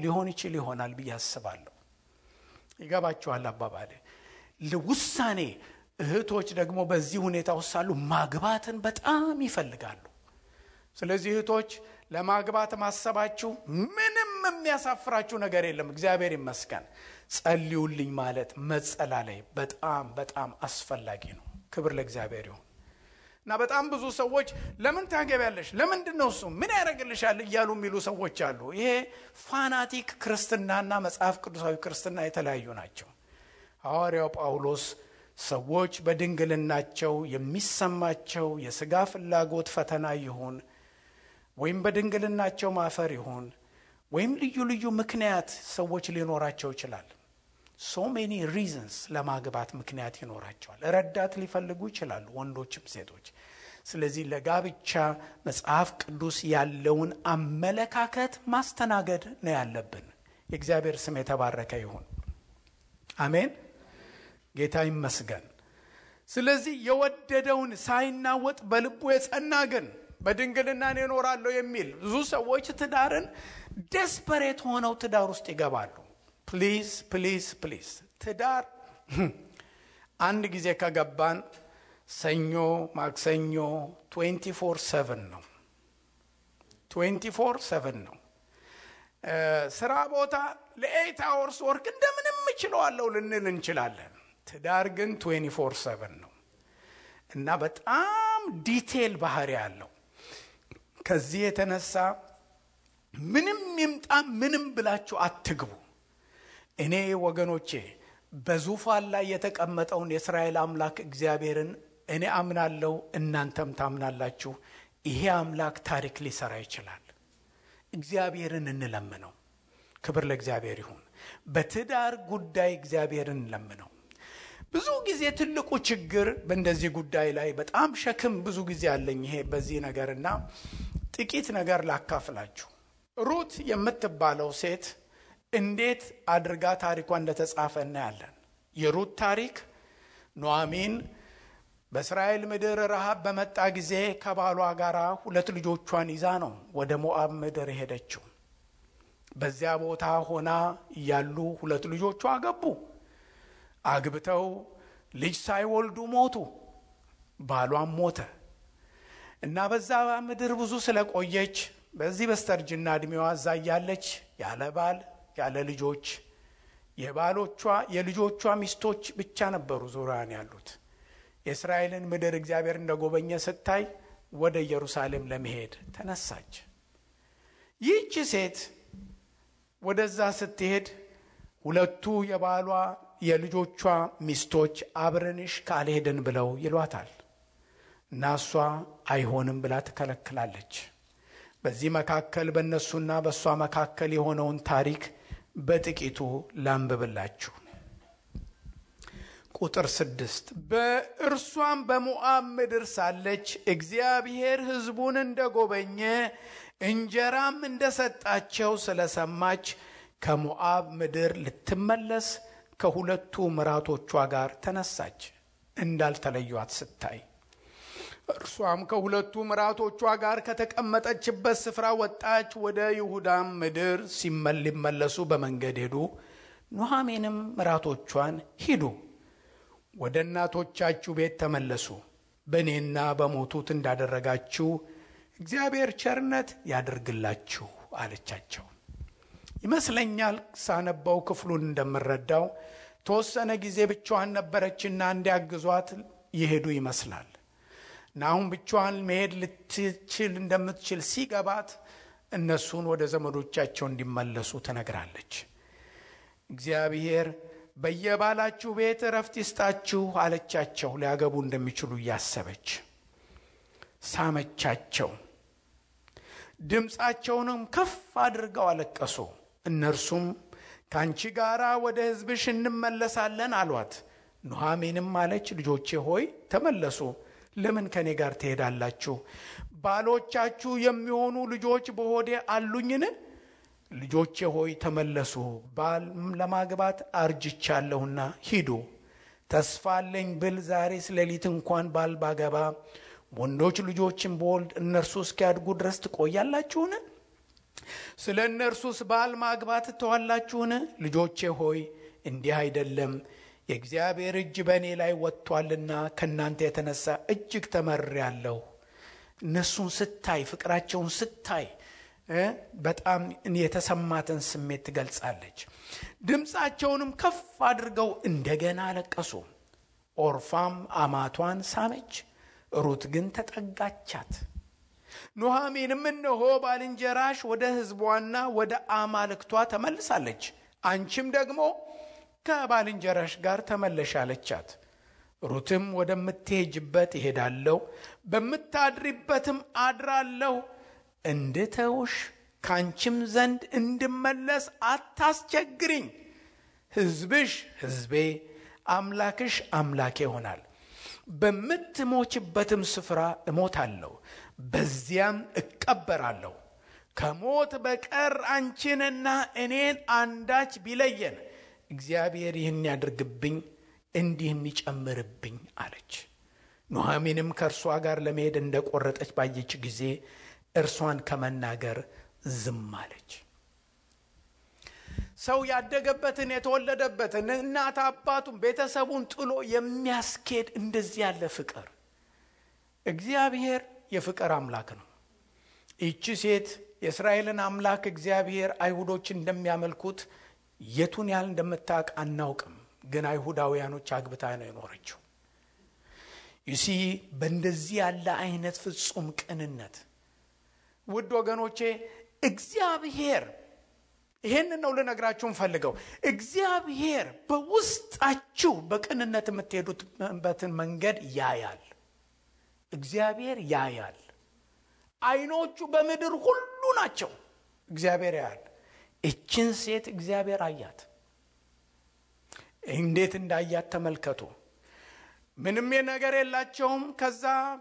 ሊሆን ይችል ይሆናል ብዬ አስባለሁ። ይገባችኋል አባባሌ? ለውሳኔ እህቶች ደግሞ በዚህ ሁኔታ ወሳሉ ማግባትን በጣም ይፈልጋሉ። ስለዚህ እህቶች ለማግባት ማሰባችሁ ምንም የሚያሳፍራችሁ ነገር የለም። እግዚአብሔር ይመስገን። ጸልዩልኝ ማለት መጸላለይ በጣም በጣም አስፈላጊ ነው። ክብር ለእግዚአብሔር ይሁን። እና በጣም ብዙ ሰዎች ለምን ታገቢያለሽ? ለምንድነው እሱ ምን ያደርግልሻል እያሉ የሚሉ ሰዎች አሉ። ይሄ ፋናቲክ ክርስትናና መጽሐፍ ቅዱሳዊ ክርስትና የተለያዩ ናቸው። ሐዋርያው ጳውሎስ ሰዎች በድንግልናቸው የሚሰማቸው የሥጋ ፍላጎት ፈተና ይሁን ወይም በድንግልናቸው ማፈር ይሁን ወይም ልዩ ልዩ ምክንያት ሰዎች ሊኖራቸው ይችላል። so many reasons ለማግባት ምክንያት ይኖራቸዋል። ረዳት ሊፈልጉ ይችላሉ ወንዶችም ሴቶች። ስለዚህ ለጋብቻ መጽሐፍ ቅዱስ ያለውን አመለካከት ማስተናገድ ነው ያለብን። የእግዚአብሔር ስም የተባረከ ይሁን። አሜን። ጌታ ይመስገን። ስለዚህ የወደደውን ሳይናወጥ በልቡ የጸና ግን በድንግልና እኖራለሁ የሚል ብዙ ሰዎች ትዳርን ዴስፐሬት ሆነው ትዳር ውስጥ ይገባሉ። ፕሊዝ ፕሊዝ ፕሊዝ ትዳር አንድ ጊዜ ከገባን ሰኞ ማክሰኞ 24/7 ነው። 24/7 ነው። ስራ ቦታ ለ8 hours ወርክ እንደምንም እችላለሁ ልንል እንችላለን። ትዳር ግን 24/7 ነው እና በጣም ዲቴል ባህሪ ያለው። ከዚህ የተነሳ ምንም ይምጣ ምንም ብላችሁ አትግቡ። እኔ ወገኖቼ በዙፋን ላይ የተቀመጠውን የእስራኤል አምላክ እግዚአብሔርን እኔ አምናለሁ፣ እናንተም ታምናላችሁ። ይሄ አምላክ ታሪክ ሊሰራ ይችላል። እግዚአብሔርን እንለምነው። ክብር ለእግዚአብሔር ይሁን። በትዳር ጉዳይ እግዚአብሔርን ለምነው። ብዙ ጊዜ ትልቁ ችግር በእንደዚህ ጉዳይ ላይ በጣም ሸክም ብዙ ጊዜ አለኝ ይሄ በዚህ ነገርና ጥቂት ነገር ላካፍላችሁ። ሩት የምትባለው ሴት እንዴት አድርጋ ታሪኳ እንደተጻፈ እናያለን። የሩት ታሪክ ኑኃሚን በእስራኤል ምድር ረሃብ በመጣ ጊዜ ከባሏ ጋር 2 ልጆቿን ይዛ ነው ወደ ሞዓብ ምድር ሄደችው። በዚያ ቦታ ሆና እያሉ 2 ልጆቿ አገቡ። አግብተው ልጅ ሳይወልዱ ሞቱ። ባሏም ሞተ እና በዛ ምድር ብዙ ስለቆየች በዚህ በስተርጅና እድሜዋ እዛ ያለች ያለ ባል ያለ ልጆች የልጆቿ ሚስቶች ብቻ ነበሩ ዙሪያን ያሉት። የእስራኤልን ምድር እግዚአብሔር እንደጎበኘ ስታይ ወደ ኢየሩሳሌም ለመሄድ ተነሳች። ይህች ሴት ወደዛ ስትሄድ 2ቱ የባሏ የልጆቿ ሚስቶች አብረንሽ ካልሄድን ብለው ይሏታል እና እሷ አይሆንም ብላ ትከለክላለች። በዚህ መካከል በእነሱና በእሷ መካከል የሆነውን ታሪክ በጥቂቱ ላንብብላችሁ። ቁጥር 6 በእርሷም በሞዓብ ምድር ሳለች እግዚአብሔር ሕዝቡን እንደጎበኘ እንጀራም እንደሰጣቸው ስለሰማች ከሞዓብ ምድር ልትመለስ ከ2ቱ ምራቶቿ ጋር ተነሳች። እንዳልተለዩት ስታይ እርሷም ከ2ቱ ምራቶቿ ጋር ከተቀመጠችበት ስፍራ ወጣች። ወደ ይሁዳም ምድር ሊመለሱ በመንገድ ሄዱ። ኑኃሚንም ምራቶቿን ሂዱ፣ ወደ እናቶቻችሁ ቤት ተመለሱ፣ በእኔና በሞቱት እንዳደረጋችሁ እግዚአብሔር ቸርነት ያደርግላችሁ አለቻቸው። ይመስለኛል ሳነበው ክፍሉን እንደምረዳው ተወሰነ ጊዜ ብቻዋን ነበረችና እንዲያግዟት ይሄዱ ይመስላል። እና አሁን ብቻዋን መሄድ ልትችል እንደምትችል ሲገባት እነሱን ወደ ዘመዶቻቸው እንዲመለሱ ትነግራለች። እግዚአብሔር በየባላችሁ ቤት እረፍት ይስጣችሁ አለቻቸው። ሊያገቡ እንደሚችሉ እያሰበች ሳመቻቸው። ድምፃቸውንም ከፍ አድርገው አለቀሱ። እነርሱም ካንቺ ጋራ ወደ ሕዝብሽ እንመለሳለን አሏት። ኑኃሚንም አለች፣ ልጆቼ ሆይ ተመለሱ። ለምን ከኔ ጋር ትሄዳላችሁ? ባሎቻችሁ የሚሆኑ ልጆች በሆዴ አሉኝን? ልጆቼ ሆይ ተመለሱ። ባል ለማግባት አርጅቻለሁና ሂዱ። ተስፋ አለኝ ብል ዛሬስ ሌሊት እንኳን ባል ባገባ ወንዶች ልጆችን በወልድ እነርሱ እስኪያድጉ ድረስ ትቆያላችሁን? ስለ እነርሱስ ባል ማግባት ተዋላችሁን? ልጆቼ ሆይ እንዲህ አይደለም፣ የእግዚአብሔር እጅ በእኔ ላይ ወጥቷልና ከእናንተ የተነሳ እጅግ ተመርሬአለሁ። እነሱን ስታይ፣ ፍቅራቸውን ስታይ በጣም የተሰማትን ስሜት ትገልጻለች። ድምፃቸውንም ከፍ አድርገው እንደገና አለቀሱ። ኦርፋም አማቷን ሳመች፣ ሩት ግን ተጠጋቻት። ኑኃሚንም እነሆ ባልንጀራሽ ወደ ሕዝቧና ወደ አማልክቷ ተመልሳለች፣ አንቺም ደግሞ ከባልንጀራሽ ጋር ተመለሽ አለቻት። ሩትም ወደምትሄጅበት እሄዳለሁ፣ በምታድሪበትም አድራለሁ፣ እንድተውሽ ካንቺም ዘንድ እንድመለስ አታስቸግሪኝ። ሕዝብሽ ሕዝቤ፣ አምላክሽ አምላኬ ይሆናል። በምትሞችበትም ስፍራ እሞታለሁ፣ በዚያም እቀበራለሁ። ከሞት በቀር አንቺንና እኔን አንዳች ቢለየን እግዚአብሔር ይህን ያድርግብኝ እንዲህም ይጨምርብኝ አለች። ኑኃሚንም ከእርሷ ጋር ለመሄድ እንደቆረጠች ባየች ጊዜ እርሷን ከመናገር ዝም አለች። ሰው ያደገበትን የተወለደበትን እናት አባቱን ቤተሰቡን ጥሎ የሚያስኬድ እንደዚህ ያለ ፍቅር፣ እግዚአብሔር የፍቅር አምላክ ነው። ይቺ ሴት የእስራኤልን አምላክ እግዚአብሔር አይሁዶች እንደሚያመልኩት የቱን ያህል እንደምታውቅ አናውቅም፣ ግን አይሁዳውያኖች አግብታ ነው የኖረችው። ይሲ በእንደዚህ ያለ አይነት ፍጹም ቅንነት ውድ ወገኖቼ እግዚአብሔር ይሄንን ነው ልነግራችሁ ፈልገው። እግዚአብሔር በውስጣችሁ በቅንነት የምትሄዱበትን መንገድ ያያል። እግዚአብሔር ያያል። አይኖቹ በምድር ሁሉ ናቸው። እግዚአብሔር ያያል። እችን ሴት እግዚአብሔር አያት። እንዴት እንዳያት ተመልከቱ። ምንም ነገር የላቸውም።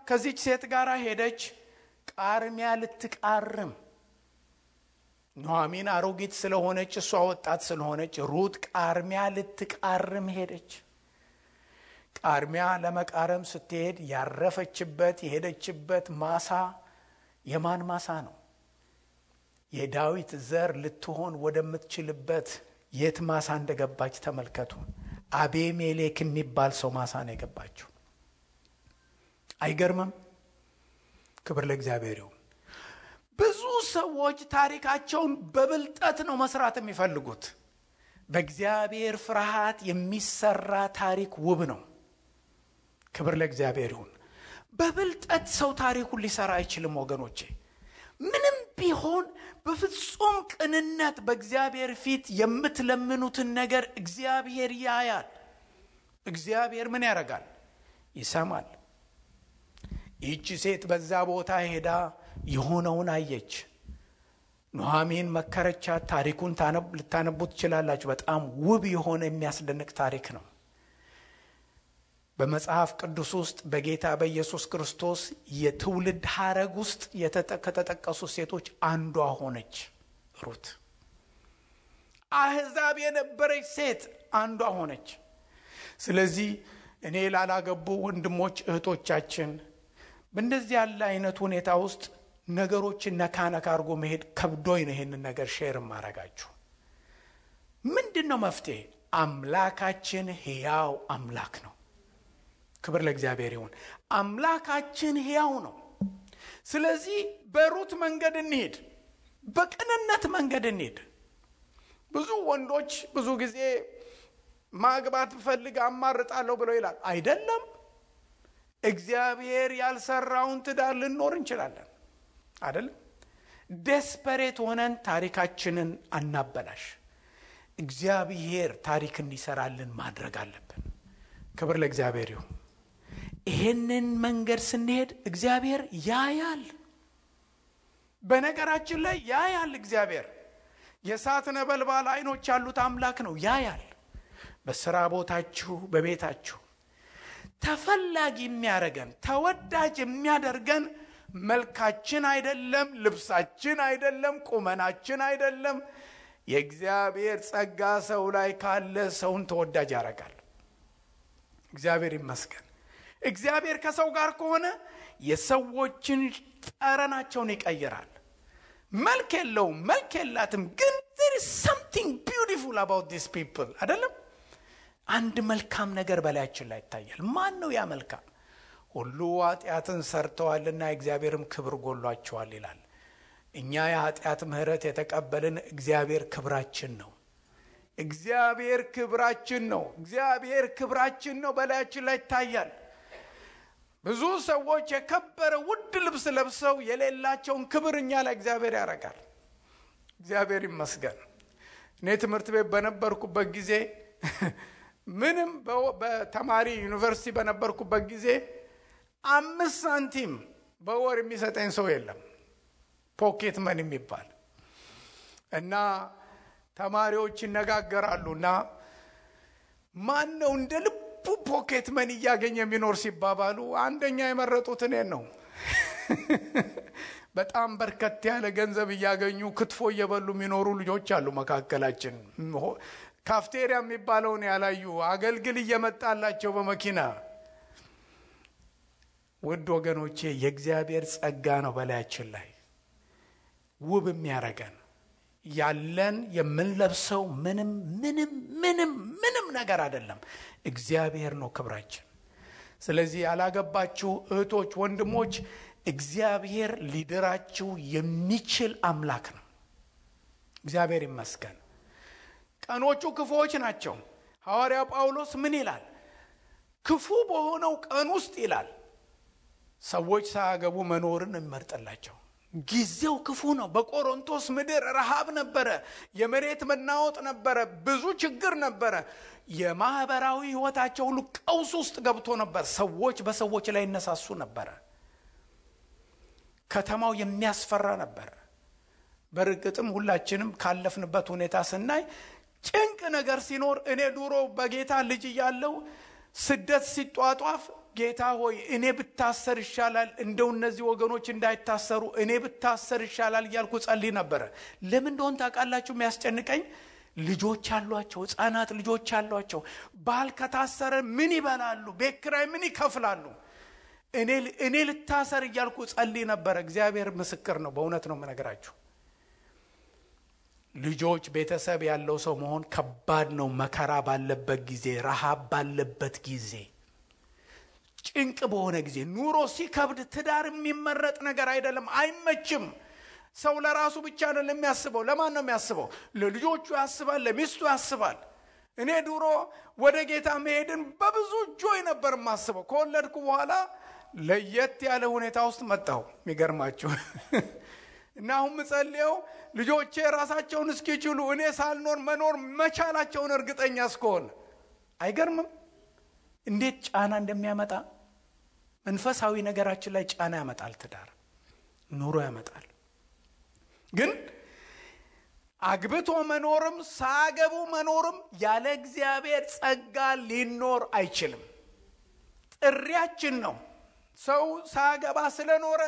ከዚች ሴት ጋር ሄደች ቃርሚያ ልትቃርም። ኑኃሚን አሮጊት ስለሆነች እሷ ወጣት ስለሆነች ሩት ቃርሚያ ልትቃርም ሄደች። ቃርሚያ ለመቃረም ስትሄድ ያረፈችበት የሄደችበት ማሳ የማን ማሳ ነው? የዳዊት ዘር ልትሆን ወደምትችልበት የት ማሳ እንደገባች ተመልከቱ። አቤሜሌክ የሚባል ሰው ማሳ ነው የገባችው። አይገርምም? ክብር ለእግዚአብሔር ይሁን። ብዙ ሰዎች ታሪካቸውን በብልጠት ነው መስራት የሚፈልጉት። በእግዚአብሔር ፍርሃት የሚሰራ ታሪክ ውብ ነው። ክብር ለእግዚአብሔር ይሁን። በብልጠት ሰው ታሪኩን ሊሰራ አይችልም ወገኖቼ። ምንም ቢሆን በፍጹም ቅንነት በእግዚአብሔር ፊት የምትለምኑትን ነገር እግዚአብሔር ያያል። እግዚአብሔር ምን ያደርጋል? ይሰማል። ይህች ሴት በዛ ቦታ ሄዳ የሆነውን አየች። ኑኃሚን መከረቻት። ታሪኩን ልታነቡት ትችላላችሁ። በጣም ውብ የሆነ የሚያስደንቅ ታሪክ ነው። በመጽሐፍ ቅዱስ ውስጥ በጌታ በኢየሱስ ክርስቶስ የትውልድ ሐረግ ውስጥ ከተጠቀሱ ሴቶች አንዷ ሆነች ሩት። አሕዛብ የነበረች ሴት አንዷ ሆነች። ስለዚህ እኔ ላላገቡ ወንድሞች እህቶቻችን በእንደዚህ ያለ አይነት ሁኔታ ውስጥ ነገሮችን ነካነካ አድርጎ መሄድ ከብዶኝ ነው ይሄንን ነገር ሼር ማረጋችሁ። ምንድነው መፍትሄ? አምላካችን ሕያው አምላክ ነው። ክብር ለእግዚአብሔር ይሁን። አምላካችን ሕያው ነው። ስለዚህ በሩት መንገድ እንሂድ፣ በቅንነት መንገድ እንሂድ። ብዙ ወንዶች ብዙ ጊዜ ማግባት ፈልግ አማርጣለሁ ብለው ይላል። አይደለም። እግዚአብሔር ያልሰራውን ትዳር ልንኖር እንችላለን አይደለም። ዴስፐሬት ሆነን ታሪካችንን አናበላሽ። እግዚአብሔር ታሪክ እንዲሰራልን ማድረግ አለብን። ክብር ለእግዚአብሔር ይሁን። ይሄንን መንገድ ስንሄድ እግዚአብሔር ያያል። በነገራችን ላይ ያያል። እግዚአብሔር የእሳት ነበልባል አይኖች ያሉት አምላክ ነው። ያያል። በስራ ቦታችሁ፣ በቤታችሁ ተፈላጊ የሚያደርገን ተወዳጅ የሚያደርገን መልካችን አይደለም፣ ልብሳችን አይደለም፣ ቁመናችን አይደለም። የእግዚአብሔር ጸጋ ሰው ላይ ካለ ሰውን ተወዳጅ ያደርጋል። እግዚአብሔር ይመስገን። እግዚአብሔር ከሰው ጋር ከሆነ የሰዎችን ጠረናቸውን ይቀይራል። መልክ የለውም፣ መልክ የላትም፣ ግን there is something beautiful about these people አይደለም። አንድ መልካም ነገር በላያችን ላይ ይታያል። ማን ነው ያ መልካም? ሁሉ ኃጢአትን ሰርተዋልና እግዚአብሔርም ክብር ጎሏቸዋል ይላል። እኛ የኃጢአት ምሕረት የተቀበልን እግዚአብሔር ክብራችን ነው። እግዚአብሔር ክብራችን ነው። እግዚአብሔር ክብራችን ነው፣ በላያችን ላይ ይታያል። ብዙ ሰዎች የከበረ ውድ ልብስ ለብሰው የሌላቸውን ክብር እኛ ላይ እግዚአብሔር ያደርጋል። እግዚአብሔር ይመስገን። እኔ ትምህርት ቤት በነበርኩበት ጊዜ ምንም በተማሪ ዩኒቨርሲቲ በነበርኩበት ጊዜ 5 ሳንቲም በወር የሚሰጠኝ ሰው የለም። ፖኬት መን የሚባል እና ተማሪዎች ይነጋገራሉና ማን ነው እንደ ልቡ ፖኬት መን እያገኘ የሚኖር ሲባባሉ አንደኛ የመረጡት እኔን ነው። በጣም በርከት ያለ ገንዘብ እያገኙ ክትፎ እየበሉ የሚኖሩ ልጆች አሉ መካከላችን። ካፍቴሪያ የሚባለውን ያላዩ አገልግል እየመጣላቸው በመኪና። ውድ ወገኖቼ የእግዚአብሔር ጸጋ ነው በላያችን ላይ ውብ የሚያረገን። ያለን የምንለብሰው ምንም ነገር አይደለም፣ እግዚአብሔር ነው ክብራችን። ስለዚህ ያላገባችሁ እህቶች፣ ወንድሞች እግዚአብሔር ሊድራችሁ የሚችል አምላክ ነው። እግዚአብሔር ይመስገን። ቀኖቹ ክፉዎች ናቸው። ሐዋርያው ጳውሎስ ምን ይላል? ክፉ በሆነው ቀን ውስጥ ይላል ሰዎች ሳያገቡ መኖርን እንመርጥላቸው። ጊዜው ክፉ ነው። በቆሮንቶስ ምድር ረሃብ ነበረ፣ የመሬት መናወጥ ነበረ፣ ብዙ ችግር ነበረ። የማህበራዊ ህይወታቸው ሁሉ ቀውስ ውስጥ ገብቶ ነበር። ሰዎች በሰዎች ላይ ይነሳሱ ነበር። ከተማው የሚያስፈራ ነበር። በርግጥም ሁላችንም ካለፍንበት ሁኔታ ስናይ ጭንቅ ነገር ሲኖር እኔ ድሮ በጌታ ልጅ እያለሁ ስደት ሲጧጧፍ ጌታ ሆይ እኔ ብታሰር ይሻላል፣ እንደው እነዚህ ወገኖች እንዳይታሰሩ እኔ ብታሰር ይሻላል እያልኩ ጸልይ ነበር። ለምን እንደሆነ ታውቃላችሁ? የሚያስጨንቀኝ ልጆች አሏቸው፣ ሕፃናት ልጆች አሏቸው። ባል ከታሰረ ምን ይበላሉ? ቤት ኪራይ ምን ይከፍላሉ? እኔ ልታሰር እያልኩ ጸልይ ነበር። እግዚአብሔር ምስክር ነው፣ በእውነት ነው የምነግራችሁ። ልጆች ቤተሰብ ያለው ሰው መሆን ከባድ ነው። መከራ ባለበት ጊዜ፣ ረሃብ ባለበት ጊዜ፣ ጭንቅ በሆነ ጊዜ፣ ኑሮ ሲከብድ ትዳር የሚመረጥ ነገር አይደለም፣ አይመችም። ሰው ለራሱ ብቻ ነው የሚያስበው። ለማን ነው የሚያስበው? ለልጆቹ ያስባል፣ ለሚስቱ ያስባል። እኔ ድሮ ወደ ጌታ መሄድን በብዙ ጆይ ነበር የማስበው። ከወለድኩ በኋላ ለየት ያለ ሁኔታ ውስጥ መጣሁ። የሚገርማችሁ እና አሁን ምጸልየው ልጆቼ ራሳቸውን እስኪችሉ እኔ ሳልኖር መኖር መቻላቸውን እርግጠኛ እስከሆነ። አይገርምም እንዴት ጫና እንደሚያመጣ? መንፈሳዊ ነገራችን ላይ ጫና ያመጣል። ትዳር ኑሮ ያመጣል። ግን አግብቶ መኖርም ሳገቡ መኖርም ያለ እግዚአብሔር ጸጋ ሊኖር አይችልም። ጥሪያችን ነው። ሰው ሳገባ ስለኖረ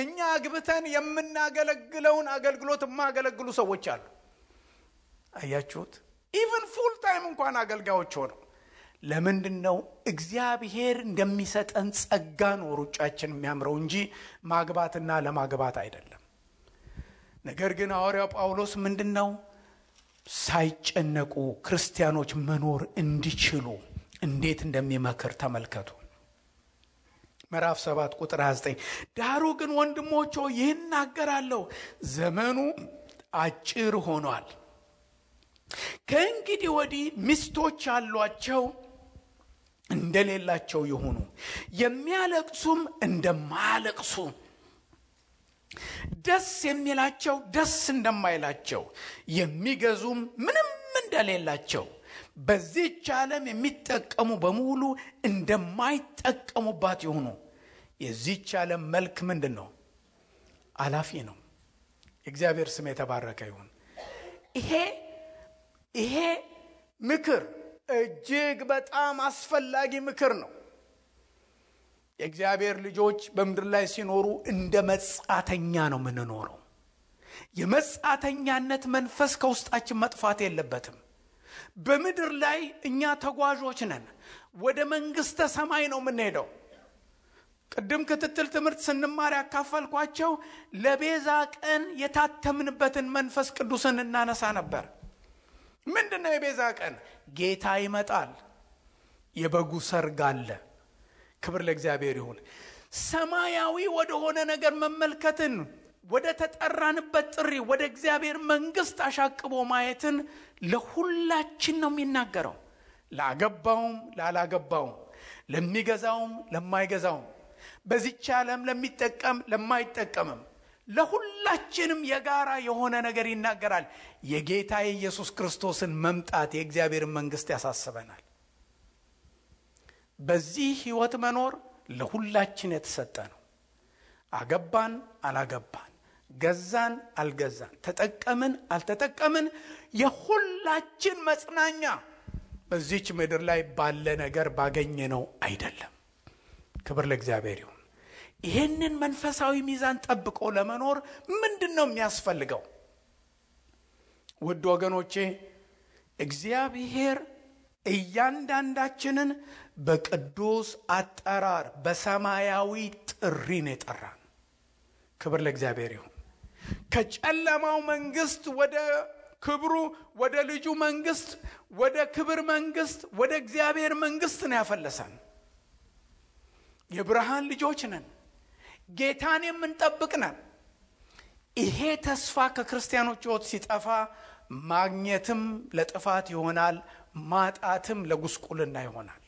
እኛ አግብተን የምናገለግለውን አገልግሎት የማያገለግሉ ሰዎች አሉ። አያችሁት? ኢቭን ፉል ታይም እንኳን አገልጋዮች ሆነው። ለምንድነው? እግዚአብሔር እንደሚሰጠን ጸጋ ነው ሩጫችን የሚያምረው እንጂ ማግባትና ለማግባት አይደለም። ነገር ግን ሐዋርያው ጳውሎስ ምንድነው ሳይጨነቁ ክርስቲያኖች መኖር እንዲችሉ እንዴት እንደሚመክር ተመልከቱ። ምዕራፍ 7 ቁጥር 29 ዳሩ ግን ወንድሞች ሆይ ይህን እናገራለሁ፣ ዘመኑ አጭር ሆኗል። ከእንግዲህ ወዲህ ሚስቶች ያሏቸው እንደሌላቸው ይሁኑ፣ የሚያለቅሱም እንደማያለቅሱ፣ ደስ የሚላቸው ደስ እንደማይላቸው፣ የሚገዙም ምንም እንደሌላቸው፣ በዚህች ዓለም የሚጠቀሙ በሙሉ እንደማይጠቀሙባት ይሁኑ። የዚህች ዓለም መልክ ምንድን ነው? አላፊ ነው። የእግዚአብሔር ስም የተባረከ ይሁን። ይሄ ምክር እጅግ በጣም አስፈላጊ ምክር ነው። የእግዚአብሔር ልጆች በምድር ላይ ሲኖሩ እንደ መጻተኛ ነው የምንኖረው። የመጻተኛነት መንፈስ ከውስጣችን መጥፋት የለበትም። በምድር ላይ እኛ ተጓዦች ነን። ወደ መንግስተ ሰማይ ነው የምንሄደው። ቅድም ክትትል ትምህርት ስንማር ያካፈልኳቸው ለቤዛ ቀን የታተምንበትን መንፈስ ቅዱስን እናነሳ ነበር። ምንድነው የቤዛ ቀን? ጌታ ይመጣል። የበጉ ሰርግ አለ። ክብር ለእግዚአብሔር ይሁን። ሰማያዊ ወደሆነ ነገር መመልከትን፣ ወደ ተጠራንበት ጥሪ ወደ እግዚአብሔር መንግስት አሻቅቦ ማየትን ለሁላችን ነው የሚናገረው። ላገባውም ላላገባውም፣ ለሚገዛውም ለማይገዛውም፣ በዚህች ዓለም ለሚጠቀም ለማይጠቀምም፣ ለሁላችንም የጋራ የሆነ ነገር ይናገራል። የጌታ የኢየሱስ ክርስቶስን መምጣት የእግዚአብሔር መንግስት ያሳስበናል። በዚህ ህይወት መኖር ለሁላችን የተሰጠ ነው። አገባን አላገባን፣ ገዛን አልገዛን፣ ተጠቀምን አልተጠቀምን፣ የሁላችን መጽናኛ በዚህች ምድር ላይ ባለ ነገር ባገኘ ነው አይደለም። ክብር ለእግዚአብሔር ይሁን። ይህንን መንፈሳዊ ሚዛን ጠብቆ ለመኖር ምንድነው የሚያስፈልገው? ውድ ወገኖቼ እግዚአብሔር እያንዳንዳችንን በቅዱስ አጠራር በሰማያዊ ጥሪ ነው የጠራን። ክብር ለእግዚአብሔር ይሁን። ከጨለማው መንግስት ወደ ክብሩ፣ ወደ ልጁ መንግስት፣ ወደ ክብር መንግስት፣ ወደ እግዚአብሔር መንግስት ነው ያፈለሰን። የብርሃን ልጆች ነን። ጌታን የምንጠብቅ ነን። ይሄ ተስፋ ከክርስቲያኖች ሕይወት ሲጠፋ ማግኘትም ለጥፋት ይሆናል፣ ማጣትም ለጉስቁልና ይሆናል።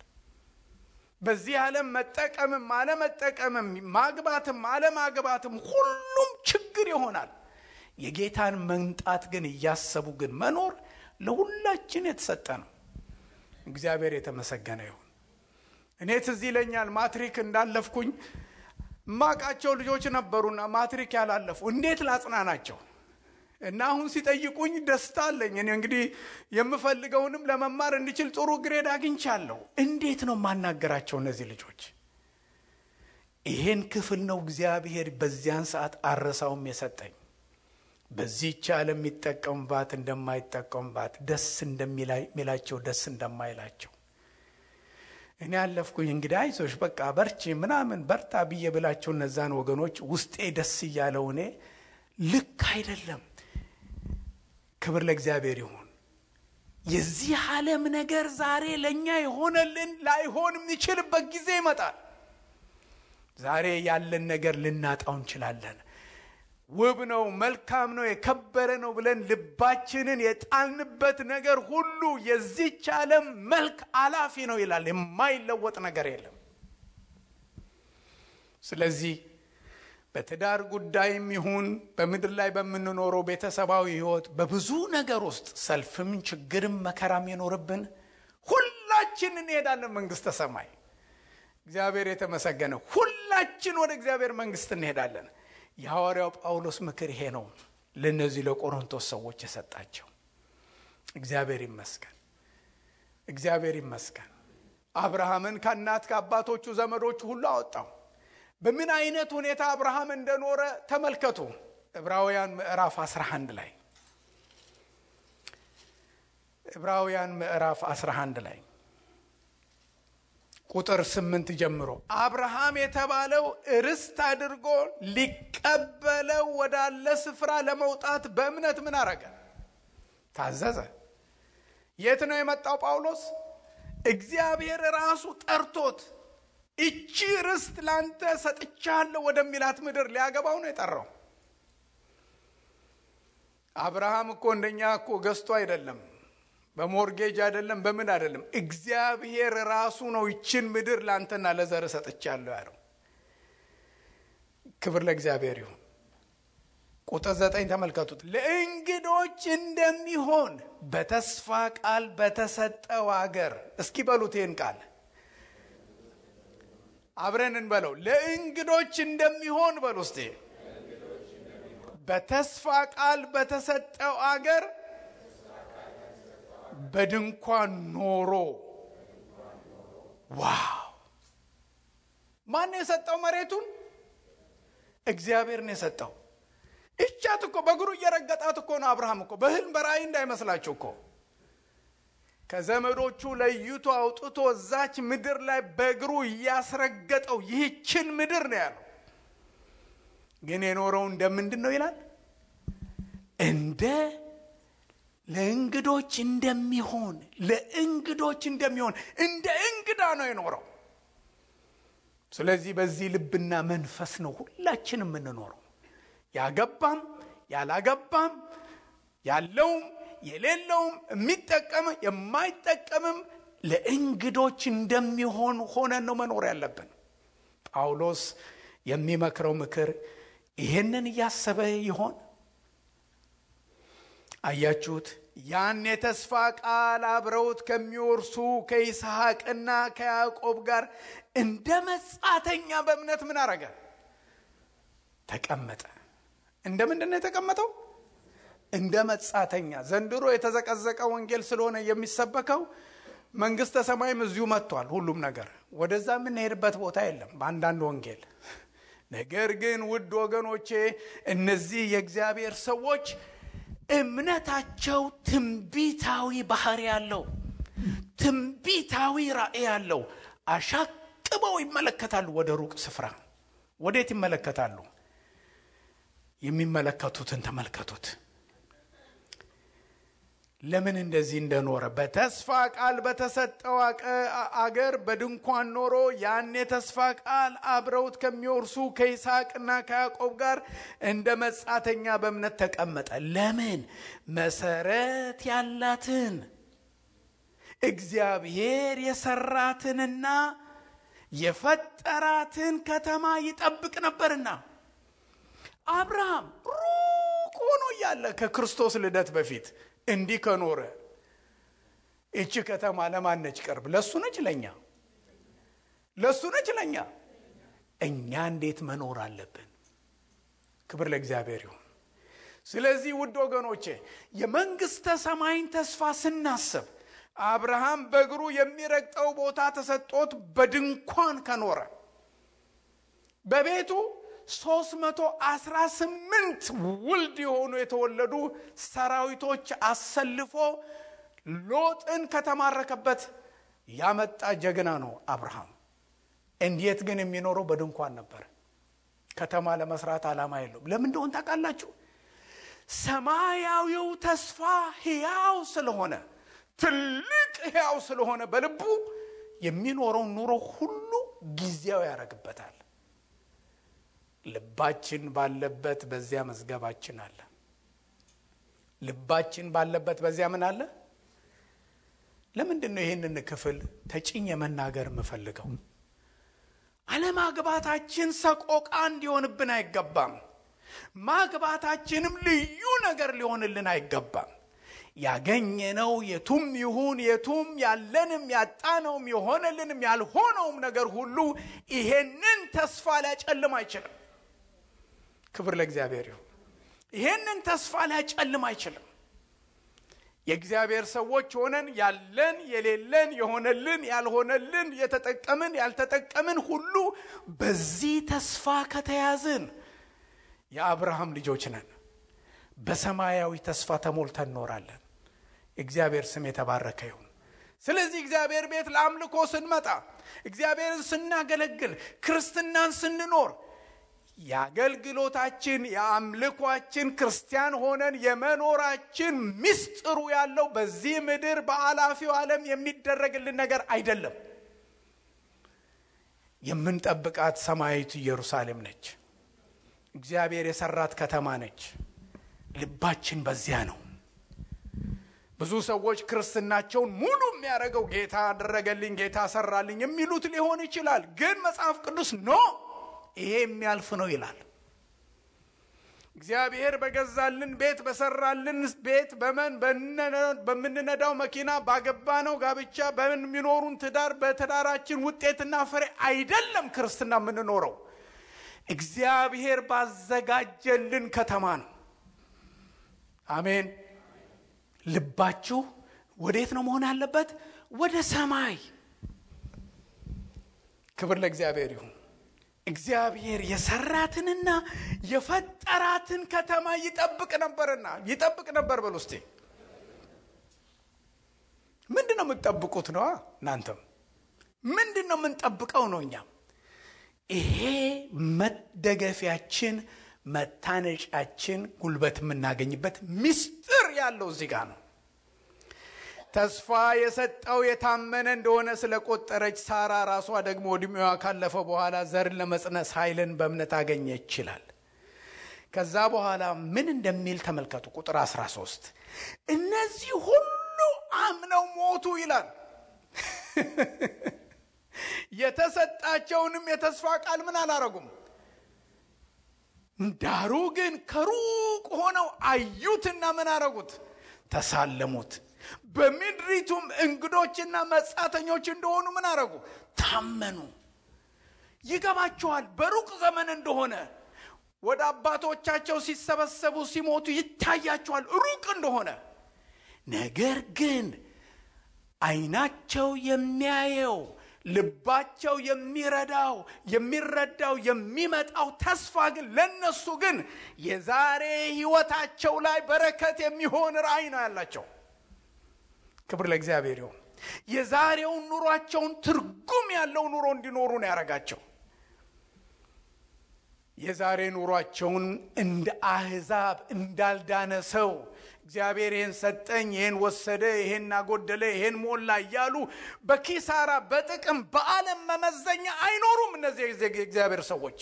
በዚህ ዓለም መጠቀምም አለመጠቀምም፣ ማግባትም አለማግባትም ሁሉም ችግር ይሆናል። የጌታን መምጣት ግን እያሰቡ ግን መኖር ለሁላችን የተሰጠ ነው። እግዚአብሔር የተመሰገነ ይሁን። እኔ ትዝ ይለኛል ማትሪክ እንዳለፍኩኝ ማቃቸው ልጆች ነበሩና ማትሪክ ያላለፉ እንዴት ላጽናናቸው? እና አሁን ሲጠይቁኝ ደስታ አለኝ። እኔ እንግዲህ የምፈልገውንም ለመማር እንድችል ጥሩ ግሬድ አግኝቻለሁ። እንዴት ነው ማናገራቸው እነዚህ ልጆች? ይሄን ክፍል ነው እግዚአብሔር በዚያን ሰዓት አረሳውም የሰጠኝ። በዚህች ዓለም የሚጠቀምባት እንደማይጠቀምባት፣ ደስ እንደሚላቸው ደስ እንደማይላቸው። እኔ ያለፍኩኝ እንግዲህ አይዞሽ በቃ በርቺ ምናምን በርታ ብዬ ብላቸው እነዛን ወገኖች ውስጤ ደስ እያለው እኔ ልክ አይደለም። ክብር ለእግዚአብሔር ይሁን። የዚህ ዓለም ነገር ዛሬ ለኛ የሆነልን ላይሆን የሚችልበት ጊዜ ይመጣል። ዛሬ ያለን ነገር ልናጣው እንችላለን። ውብ ነው፣ መልካም ነው፣ የከበረ ነው ብለን ልባችንን የጣልንበት ነገር ሁሉ የዚህች ዓለም መልክ አላፊ ነው ይላል። የማይለወጥ ነገር የለም። ስለዚህ በትዳር ጉዳይም ይሁን በምድር ላይ በምንኖረው ቤተሰባዊ ሕይወት በብዙ ነገር ውስጥ ሰልፍም ችግርም መከራም ይኖርብን ሁላችን እንሄዳለን መንግስተ ሰማይ። እግዚአብሔር የተመሰገነ። ሁላችን ወደ እግዚአብሔር መንግስት እንሄዳለን። የሐዋርያው ጳውሎስ ምክር ይሄ ነው ለነዚህ ለቆሮንቶስ ሰዎች የሰጣቸው። እግዚአብሔር ይመስገን፣ እግዚአብሔር ይመስገን። አብርሃምን ከእናት ከአባቶቹ ዘመዶቹ ሁሉ አወጣው። በምን አይነት ሁኔታ አብርሃም እንደኖረ ተመልከቱ። ዕብራውያን ምዕራፍ 11 ላይ ዕብራውያን ምዕራፍ 11 ላይ ቁጥር 8 ጀምሮ አብርሃም የተባለው ርስት አድርጎ ሊቀበለው ወዳለ ስፍራ ለመውጣት በእምነት ምን አረገ? ታዘዘ። የት ነው የመጣው ጳውሎስ? እግዚአብሔር ራሱ ጠርቶት እቺ ርስት ላንተ ሰጥቻለሁ ወደሚላት ምድር ሊያገባው ነው የጠራው። አብርሃም እኮ እንደኛ እኮ ገዝቶ አይደለም፣ በሞርጌጅ አይደለም፣ በምን አይደለም። እግዚአብሔር ራሱ ነው ይችን ምድር ላንተና ለዘር ሰጥቻለሁ ያለው። ክብር ለእግዚአብሔር ይሁን። ቁጥር 9 ተመልከቱት። ለእንግዶች እንደሚሆን በተስፋ ቃል በተሰጠው አገር። እስኪ በሉት ይህን ቃል አብረን እንበለው። ለእንግዶች እንደሚሆን በሉ እስቲ። በተስፋ ቃል በተሰጠው አገር በድንኳን ኖሮ። ዋው! ማን የሰጠው መሬቱን? እግዚአብሔር ነው የሰጠው። እቻት እኮ በእግሩ እየረገጣት እኮ ነው። አብርሃም እኮ በህልም በራእይ እንዳይመስላችሁ እኮ ከዘመዶቹ ለይቶ አውጥቶ እዛች ምድር ላይ በእግሩ እያስረገጠው ይህችን ምድር ነው ያለው። ግን የኖረው እንደምንድን ነው ይላል? እንደ ለእንግዶች እንደሚሆን፣ ለእንግዶች እንደሚሆን እንደ እንግዳ ነው የኖረው። ስለዚህ በዚህ ልብና መንፈስ ነው ሁላችንም የምንኖረው። ያገባም ያላገባም፣ ያለውም የሌለውም፣ የሚጠቀም የማይጠቀምም ለእንግዶች እንደሚሆን ሆነን ነው መኖር ያለብን። ጳውሎስ የሚመክረው ምክር ይሄንን እያሰበ ይሆን? አያችሁት? ያን የተስፋ ቃል አብረውት ከሚወርሱ ከይስሐቅና ከያዕቆብ ጋር እንደ መጻተኛ በእምነት ምን አረገ? ተቀመጠ። እንደ ምንድን ነው የተቀመጠው? እንደ መጻተኛ። ዘንድሮ የተዘቀዘቀ ወንጌል ስለሆነ የሚሰበከው መንግስተ ሰማይም እዚሁ መጥቷል። ሁሉም ነገር ወደዛ የምንሄድበት ቦታ የለም በአንዳንድ ወንጌል። ነገር ግን ውድ ወገኖቼ እነዚህ የእግዚአብሔር ሰዎች እምነታቸው ትንቢታዊ ባህሪ ያለው፣ ትንቢታዊ ራእይ ያለው። አሻቅበው ይመለከታሉ ወደ ሩቅ ስፍራ። ወዴት ይመለከታሉ? የሚመለከቱትን ተመልከቱት። ለምን እንደዚህ እንደኖረ በተስፋ ቃል በተሰጠው አገር በድንኳን ኖሮ ያን የተስፋ ቃል አብረውት ከሚወርሱ ከይስሐቅና ከያዕቆብ ጋር እንደ መጻተኛ በእምነት ተቀመጠ። ለምን? መሰረት ያላትን እግዚአብሔር የሰራትንና የፈጠራትን ከተማ ይጠብቅ ነበርና። አብርሃም ሩቅ ሆኖ እያለ ከክርስቶስ ልደት በፊት እንዲህ ከኖረ እቺ ከተማ ለማን ነች ቅርብ? ለሱ ነች ለኛ? ለሱ ነች ለኛ? እኛ እንዴት መኖር አለብን? ክብር ለእግዚአብሔር ይሁን። ስለዚህ ውድ ወገኖቼ የመንግስተ ሰማይን ተስፋ ስናስብ አብርሃም በእግሩ የሚረግጠው ቦታ ተሰጥቶት በድንኳን ከኖረ በቤቱ 318 ውልድ የሆኑ የተወለዱ ሰራዊቶች አሰልፎ ሎጥን ከተማረከበት ያመጣ ጀግና ነው አብርሃም። እንዴት ግን የሚኖረው በድንኳን ነበር። ከተማ ለመስራት ዓላማ የለውም። ለምን እንደሆነ ታውቃላችሁ? ሰማያዊው ተስፋ ሕያው ስለሆነ ትልቅ ሕያው ስለሆነ በልቡ የሚኖረው ኑሮ ሁሉ ጊዜያዊ ያደርግበታል። ልባችን ባለበት በዚያ መዝገባችን አለ። ልባችን ባለበት በዚያ ምን አለ? ለምንድነው ይሄንን ክፍል ተጭኝ መናገር የምፈልገው? አለማግባታችን ሰቆቃ እንዲሆንብን አይገባም። ማግባታችንም ልዩ ነገር ሊሆንልን አይገባም። ያገኘነው የቱም ይሁን የቱም ያለንም ያጣነውም የሆነልንም ያልሆነውም ነገር ሁሉ ይሄንን ተስፋ ሊያጨልም አይችልም። ክብር ለእግዚአብሔር ይሁን። ይሄንን ተስፋ ሊያጨልም አይችልም። የእግዚአብሔር ሰዎች ሆነን ያለን የሌለን የሆነልን ያልሆነልን የተጠቀምን ያልተጠቀምን ሁሉ በዚህ ተስፋ ከተያዝን የአብርሃም ልጆች ነን። በሰማያዊ ተስፋ ተሞልተን እንኖራለን። እግዚአብሔር ስም የተባረከ ይሁን። ስለዚህ እግዚአብሔር ቤት ለአምልኮ ስንመጣ፣ እግዚአብሔርን ስናገለግል፣ ክርስትናን ስንኖር የአገልግሎታችን የአምልኳችን ክርስቲያን ሆነን የመኖራችን ምስጢሩ ያለው በዚህ ምድር በአላፊው ዓለም የሚደረግልን ነገር አይደለም። የምንጠብቃት ሰማያዊት ኢየሩሳሌም ነች። እግዚአብሔር የሰራት ከተማ ነች። ልባችን በዚያ ነው። ብዙ ሰዎች ክርስትናቸውን ሙሉ የሚያደርገው ጌታ አደረገልኝ ጌታ ሰራልኝ የሚሉት ሊሆን ይችላል። ግን መጽሐፍ ቅዱስ ይሄ የሚያልፍ ነው ይላል። እግዚአብሔር በገዛልን ቤት በሰራልን ቤት በምንነዳው መኪና ባገባነው ጋብቻ በሚኖሩን ትዳር በትዳራችን ውጤትና ፍሬ አይደለም ክርስትና የምንኖረው። እግዚአብሔር ባዘጋጀልን ከተማ ነው። አሜን። ልባችሁ ወዴት ነው መሆን ያለበት? ወደ ሰማይ። ክብር ለእግዚአብሔር ይሁን። እግዚአብሔር የሰራትንና የፈጠራትን ከተማ ይጠብቅ ነበር በሉ እስቲ። ምንድነው የምትጠብቁት ነው? እናንተም ምንድነው የምንጠብቀው ነው? እኛም ይሄ መደገፊያችን መታነጫችን ጉልበት የምናገኝበት ምስጢር ያለው እዚህ ጋር ነው። ተስፋ የሰጠው የታመነ እንደሆነ ስለቆጠረች ሳራ ራሷ ደግሞ ዕድሜዋ ካለፈ በኋላ ዘርን ለመጽነስ ኃይልን በእምነት አገኘች ይላል። ከዛ በኋላ ምን እንደሚል ተመልከቱ። ቁጥር 13 እነዚህ ሁሉ አምነው ሞቱ ይላል። የተሰጣቸውንም የተስፋ ቃል ምን አላረጉም? ዳሩ ግን ከሩቅ ሆነው አዩትና ምን አረጉት? ተሳለሙት። በምድሪቱም እንግዶችና መጻተኞች እንደሆኑ ምን አረጉ? ታመኑ። ይገባቸዋል በሩቅ ዘመን እንደሆነ። ወደ አባቶቻቸው ሲሰበሰቡ ሲሞቱ ይታያቸዋል ሩቅ እንደሆነ። ነገር ግን አይናቸው የሚያየው ልባቸው የሚረዳው የሚመጣው ተስፋ ግን ለነሱ ግን የዛሬ ህይወታቸው ላይ በረከት የሚሆን ራእይ ነው ያላቸው። ክብር ለእግዚአብሔር ይሁን። የዛሬውን ኑሯቸውን ትርጉም ያለው ኑሮ እንዲኖሩ ነው ያረጋቸው። የዛሬ ኑሯቸውን እንደ አህዛብ እንዳልዳነ ሰው እግዚአብሔር ይሄን ሰጠኝ ይሄን ወሰደ ይሄን አጎደለ ይሄን ሞላ እያሉ በኪሳራ በጥቅም በዓለም መመዘኛ አይኖሩም። እነዚህ እግዚአብሔር ሰዎች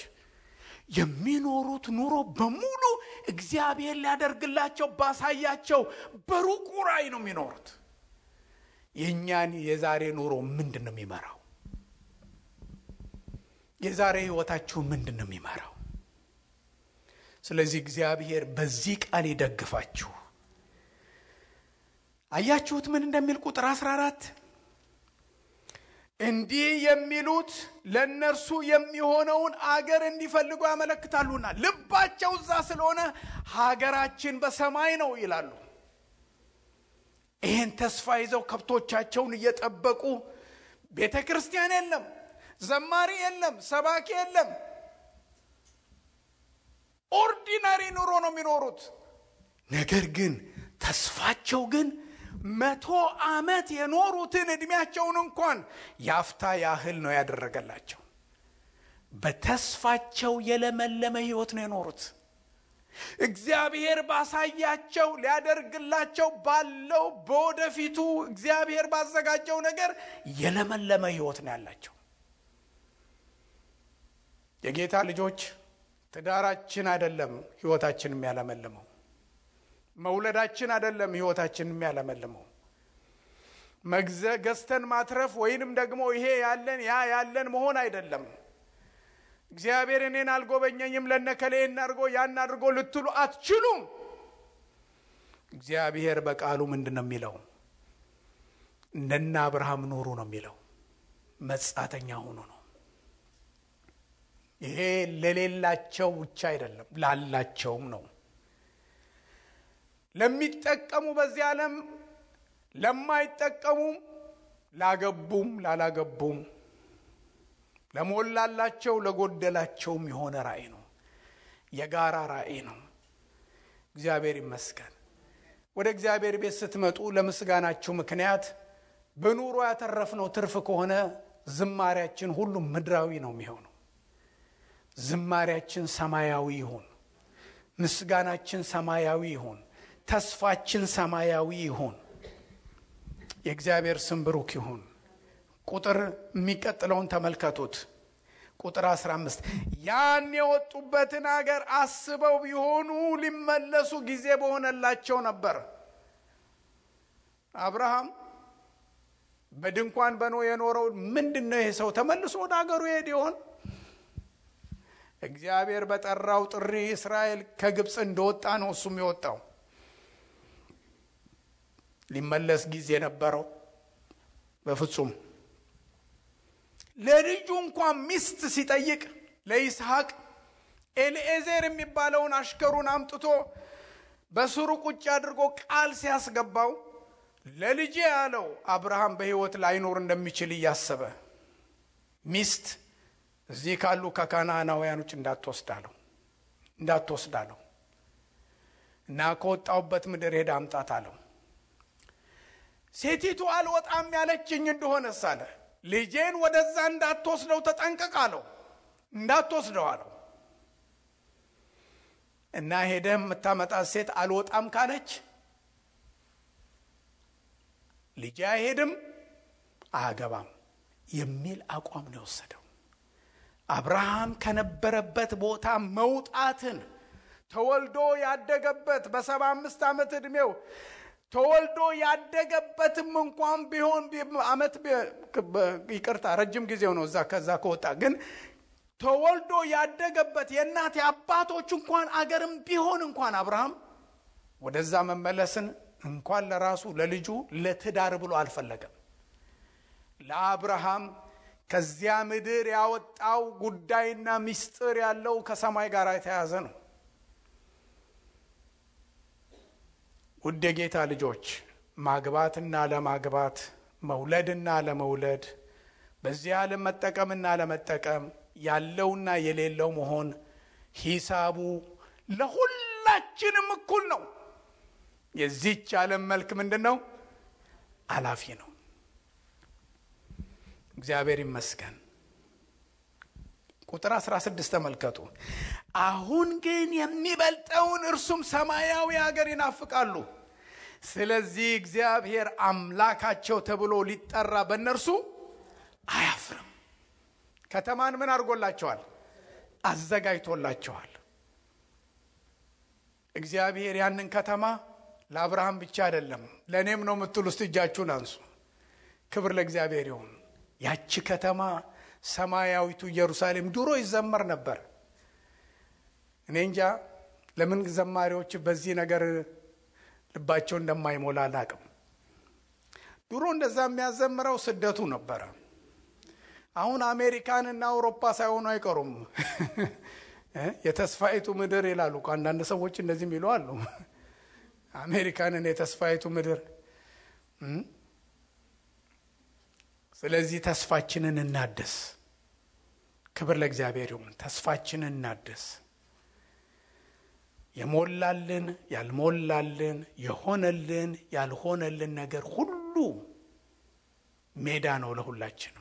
የሚኖሩት ኑሮ በሙሉ እግዚአብሔር ሊያደርግላቸው ባሳያቸው በሩቁ ራእይ ነው የሚኖሩት። የኛን የዛሬ ኑሮ ምንድነው የሚመራው? የዛሬ ህይወታችሁ ምንድነው የሚመራው? ስለዚህ እግዚአብሔር በዚህ ቃል ይደግፋችሁ። አያችሁት ምን እንደሚል ቁጥር 14 እንዲህ የሚሉት ለነርሱ የሚሆነውን አገር እንዲፈልጉ ያመለክታሉና ልባቸው እዛ ስለሆነ ሀገራችን በሰማይ ነው ይላሉ። ይህን ተስፋ ይዘው ከብቶቻቸውን እየጠበቁ ቤተክርስቲያን የለም፣ ዘማሪ የለም፣ ሰባኪ የለም፣ ኦርዲናሪ ኑሮ ነው የሚኖሩት። ነገር ግን ተስፋቸው ግን 100 ዓመት የኖሩትን እድሜያቸውን እንኳን ያፍታ ያህል ነው ያደረገላቸው። በተስፋቸው የለመለመ ህይወት ነው የኖሩት። እግዚአብሔር ባሳያቸው ሊያደርግላቸው ባለው በወደፊቱ እግዚአብሔር ባዘጋጀው ነገር የለመለመ ህይወት ነው ያላቸው። የጌታ ልጆች ትዳራችን አይደለም ህይወታችን የሚያለመልመው፣ መውለዳችን አይደለም ህይወታችን የሚያለመልመው፣ ገዝተን ማትረፍ ወይንም ደግሞ ይሄ ያለን ያ ያለን መሆን አይደለም። እግዚአብሔር እኔን አልጎበኘኝም ለነከሌ እናርጎ ያን አድርጎ ልትሉ አትችሉም። እግዚአብሔር በቃሉ ምንድነው የሚለው? እንደና አብርሃም ኑሩ ነው የሚለው። መጻተኛ ሆኖ ነው። ይሄ ለሌላቸው ብቻ አይደለም ላላቸውም ነው። ለሚጠቀሙ በዚህ ዓለም ለማይጠቀሙ፣ ላገቡም ላላገቡም፣ ለሞላላቸው ለጎደላቸውም የሆነ ራእይ ነው። የጋራ ራእይ ነው። እግዚአብሔር ይመስገን። ወደ እግዚአብሔር ቤት ስትመጡ ለምስጋናችሁ ምክንያት በኑሮ ያተረፍነው ትርፍ ከሆነ ዝማሬያችን ሁሉ ምድራዊ ነው የሚሆነው። ዝማሬያችን ሰማያዊ ይሁን፣ ምስጋናችን ሰማያዊ ይሁን፣ ተስፋችን ሰማያዊ ይሁን። የእግዚአብሔር ስም ብሩክ ይሁን። ቁጥር የሚቀጥለውን ተመልከቱት። ቁጥር 15 ያን የወጡበትን አገር አስበው ቢሆኑ ሊመለሱ ጊዜ በሆነላቸው ነበር። አብርሃም በድንኳን በኖ የኖረው ምንድነው? ይሄ ሰው ተመልሶ ወደ አገሩ ይሄድ ይሆን? እግዚአብሔር በጠራው ጥሪ እስራኤል ከግብጽ እንደወጣ ነው እሱም የወጣው። ሊመለስ ጊዜ ነበረው? በፍጹም። ለልጁ እንኳን ሚስት ሲጠይቅ ለይስሐቅ ኤልኤዘር የሚባለውን አሽከሩን አምጥቶ በስሩ ቁጭ አድርጎ ቃል ሲያስገባው ለልጄ ያለው አብርሃም በህይወት ላይኖር እንደሚችል እያሰበ ሚስት እዚህ ካሉ ከካናናውያኖች እንዳትወስዳለው እና ከወጣውበት ምድር ሄዳ አምጣት አለው። ሴቲቱ አልወጣም ያለችኝ እንደሆነ ሳለ ልጄን ወደዛ እንዳትወስደው ተጠንቀቅ አለው። እንዳትወስደው አለው እና ሄደም የምታመጣት ሴት አልወጣም ካለች ልጄ አይሄድም አያገባም የሚል አቋም ነው የወሰደው። አብርሃም ከነበረበት ቦታ መውጣትን ተወልዶ ያደገበት በ75 ዓመት እድሜው ተወልዶ ያደገበትም እንኳን ቢሆን አመት ይቅርታ ረጅም ጊዜው ነው ከዛ ከወጣ ግን ተወልዶ ያደገበት የእናት አባቶች እንኳን አገርም ቢሆን እንኳን አብርሃም ወደዛ መመለስን እንኳን ለራሱ ለልጁ ለትዳር ብሎ አልፈለገም። ለአብርሃም ከዚያ ምድር ያወጣው ጉዳይና ሚስጥር ያለው ከሰማይ ጋር የተያዘ ነው። ውድ የጌታ ልጆች ማግባትና ለማግባት መውለድና ለመውለድ በዚህ ዓለም መጠቀምና ለመጠቀም ያለውና የሌለው መሆን ሂሳቡ ለሁላችንም እኩል ነው። የዚህች ዓለም መልክ ምንድነው? አላፊ ነው። እግዚአብሔር ይመስገን። ቁጥር 16 ተመልከቱ። አሁን ግን የሚበልጠውን እርሱም ሰማያዊ ሀገር ይናፍቃሉ። ስለዚህ እግዚአብሔር አምላካቸው ተብሎ ሊጠራ በእነርሱ አያፍርም። ከተማን ምን አድርጎላቸዋል? አዘጋጅቶላቸዋል። እግዚአብሔር ያንን ከተማ ለአብርሃም ብቻ አይደለም ለኔም ነው የምትሉ እስቲ እጃችሁን አንሱ። ክብር ለእግዚአብሔር ይሁን። ያቺ ከተማ ሰማያዊቱ ኢየሩሳሌም ድሮ ይዘመር ነበር። እኔ እንጃ ለምን ዘማሪዎች በዚህ ነገር ልባቸው እንደማይሞላ አላቅም። ድሮ እንደዛ የሚያዘምረው ስደቱ ነበር። አሁን አሜሪካንና አውሮፓ ሳይሆኑ አይቀሩም የተስፋይቱ ምድር ይላሉ። አንዳንድ ሰዎች እንደዚህ የሚሉ አሉ። አሜሪካንን የተስፋይቱ ምድር። ስለዚህ ተስፋችንን እናድስ። ክብር ለእግዚአብሔር ይሁን። ተስፋችንን እናድስ። የሞላልን ያልሞላልን፣ የሆነልን ያልሆነልን ነገር ሁሉ ሜዳ ነው ለሁላችንም።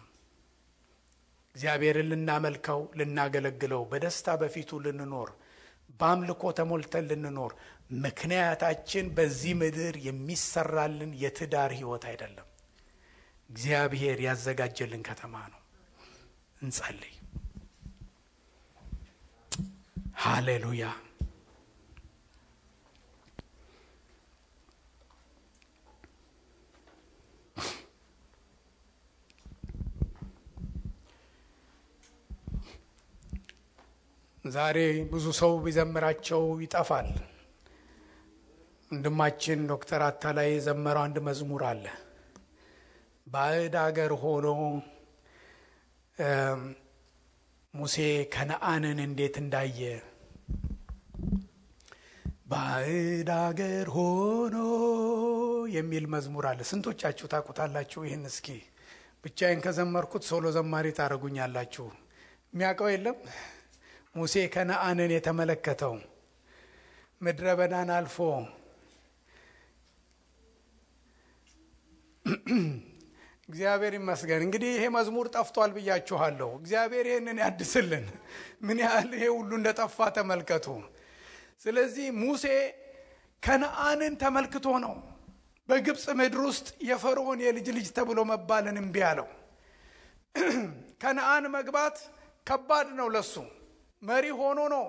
እግዚአብሔርን ልናመልከው ልናገለግለው፣ በደስታ በፊቱ ልንኖር፣ በአምልኮ ተሞልተን ልንኖር ምክንያታችን በዚህ ምድር የሚሰራልን የትዳር ህይወት አይደለም። እግዚአብሔር ያዘጋጀልን ከተማ ነው። እንጸልይ። ሃሌሉያ። ዛሬ ብዙ ሰው ቢዘምራቸው ይጠፋል። ወንድማችን ዶክተር አታላይ የዘመረው አንድ መዝሙር አለ። ባዕድ አገር ሆኖ ሙሴ ከነአንን እንዴት እንዳየ፣ ባዕድ አገር ሆኖ የሚል መዝሙር አለ። ስንቶቻችሁ ታውቁታላችሁ? ይህን እስኪ ብቻዬን ከዘመርኩት ሶሎ ዘማሪ ታረጉኛላችሁ። የሚያውቀው የለም? ሙሴ ከነአንን የተመለከተው ምድረ በዳን አልፎ እግዚአብሔር ይመስገን። እንግዲህ ይሄ መዝሙር ጠፍቷል ብያችኋለሁ። እግዚአብሔር ይህንን ያድስልን። ምን ያህል ይሄ ሁሉ እንደጠፋ ተመልከቱ። ስለዚህ ሙሴ ከነአንን ተመልክቶ ነው በግብፅ ምድር ውስጥ የፈርዖን የልጅ ልጅ ተብሎ መባልን እምቢ አለው። ከነአን መግባት ከባድ ነው ለሱ። መሪ ሆኖ ነው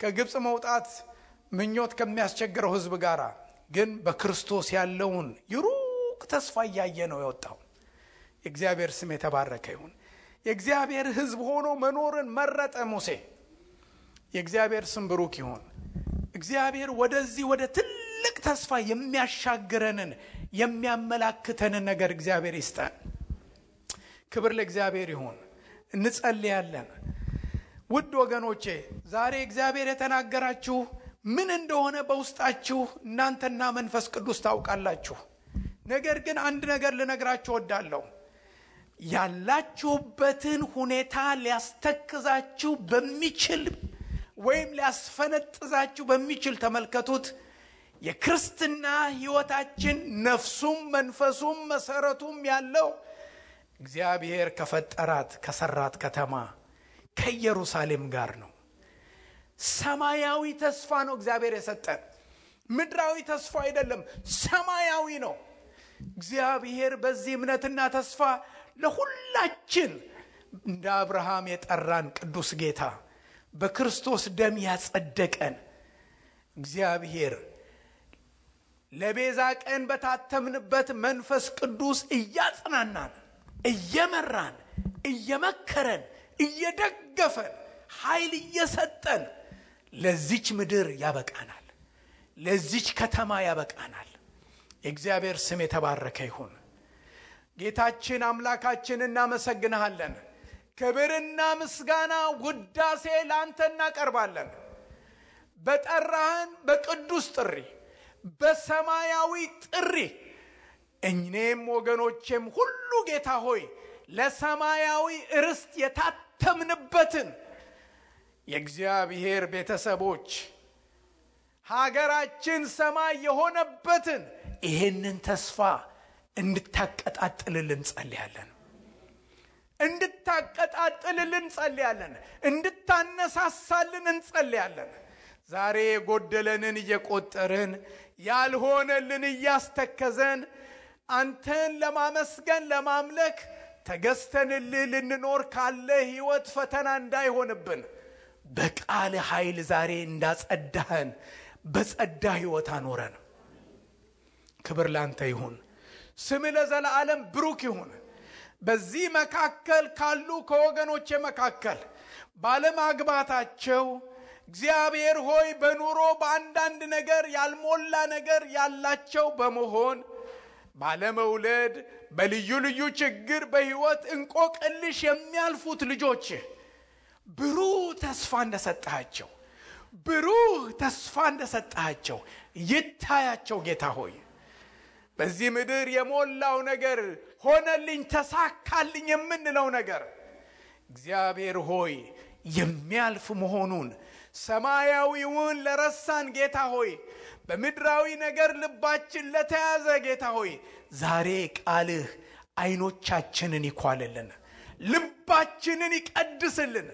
ከግብፅ መውጣት ምኞት ከሚያስቸግረው ህዝብ ጋር። ግን በክርስቶስ ያለውን የሩቅ ተስፋ እያየ ነው የወጣው። የእግዚአብሔር ስም የተባረከ ይሁን። የእግዚአብሔር ህዝብ ሆኖ መኖርን መረጠ ሙሴ። የእግዚአብሔር ስም ብሩክ ይሁን። እግዚአብሔር ወደዚህ ወደ ትልቅ ተስፋ የሚያሻግረንን የሚያመላክተንን ነገር እግዚአብሔር ይስጠን። ክብር ለእግዚአብሔር ይሁን። እንጸልያለን። ውድ ወገኖቼ ዛሬ እግዚአብሔር የተናገራችሁ ምን እንደሆነ በውስጣችሁ እናንተና መንፈስ ቅዱስ ታውቃላችሁ። ነገር ግን አንድ ነገር ልነግራችሁ ወዳለሁ። ያላችሁበትን ሁኔታ ሊያስተክዛችሁ በሚችል ወይም ሊያስፈነጥዛችሁ በሚችል ተመልከቱት። የክርስትና ህይወታችን ነፍሱም መንፈሱም መሰረቱም ያለው እግዚአብሔር ከፈጠራት ከሰራት ከተማ ከኢየሩሳሌም ጋር ነው። ሰማያዊ ተስፋ ነው እግዚአብሔር የሰጠን። ምድራዊ ተስፋ አይደለም፣ ሰማያዊ ነው። እግዚአብሔር በዚህ እምነትና ተስፋ ለሁላችን እንደ አብርሃም የጠራን ቅዱስ ጌታ በክርስቶስ ደም ያጸደቀን እግዚአብሔር ለቤዛ ቀን በታተምንበት መንፈስ ቅዱስ እያጽናናን፣ እየመራን፣ እየመከረን፣ እየደገፈን፣ ኃይል እየሰጠን ለዚች ምድር ያበቃናል፣ ለዚች ከተማ ያበቃናል። የእግዚአብሔር ስም የተባረከ ይሁን። ጌታችን አምላካችን እናመሰግንሃለን። ክብርና ምስጋና ውዳሴ ላንተ እናቀርባለን። በጠራህን በቅዱስ ጥሪ፣ በሰማያዊ ጥሪ እኔም ወገኖቼም ሁሉ ጌታ ሆይ ለሰማያዊ ርስት የታተምንበትን የእግዚአብሔር ቤተሰቦች ሀገራችን ሰማይ የሆነበትን ይህንን ተስፋ እንድታቀጣጥልልን ጸልያለን። እንድታቀጣጥልልን ጸልያለን። እንድታነሳሳልን እንጸልያለን። ዛሬ የጎደለንን እየቆጠርን ያልሆነልን እያስተከዘን አንተን ለማመስገን ለማምለክ ተገዝተንልህ ልንኖር ካለ ህይወት ፈተና እንዳይሆንብን በቃል ኃይል ዛሬ እንዳጸዳህን በጸዳ ህይወት አኖረን። ክብር ላንተ ይሁን። ስም ለዘላለም ብሩክ ይሁን። በዚህ መካከል ካሉ ከወገኖቼ መካከል ባለማግባታቸው እግዚአብሔር ሆይ በኑሮ በአንዳንድ ነገር ያልሞላ ነገር ያላቸው በመሆን ባለመውለድ በልዩ ልዩ ችግር በሕይወት እንቆቅልሽ የሚያልፉት ልጆች ብሩህ ተስፋ እንደሰጣቸው ይታያቸው። ጌታ ሆይ በዚህ ምድር የሞላው ነገር ሆነልኝ፣ ተሳካልኝ የምንለው ነገር እግዚአብሔር ሆይ የሚያልፍ መሆኑን ሰማያዊውን ለረሳን ጌታ ሆይ በምድራዊ ነገር ልባችን ለተያዘ ጌታ ሆይ ዛሬ ቃልህ አይኖቻችንን ይኳልልን፣ ልባችንን ይቀድስልን፣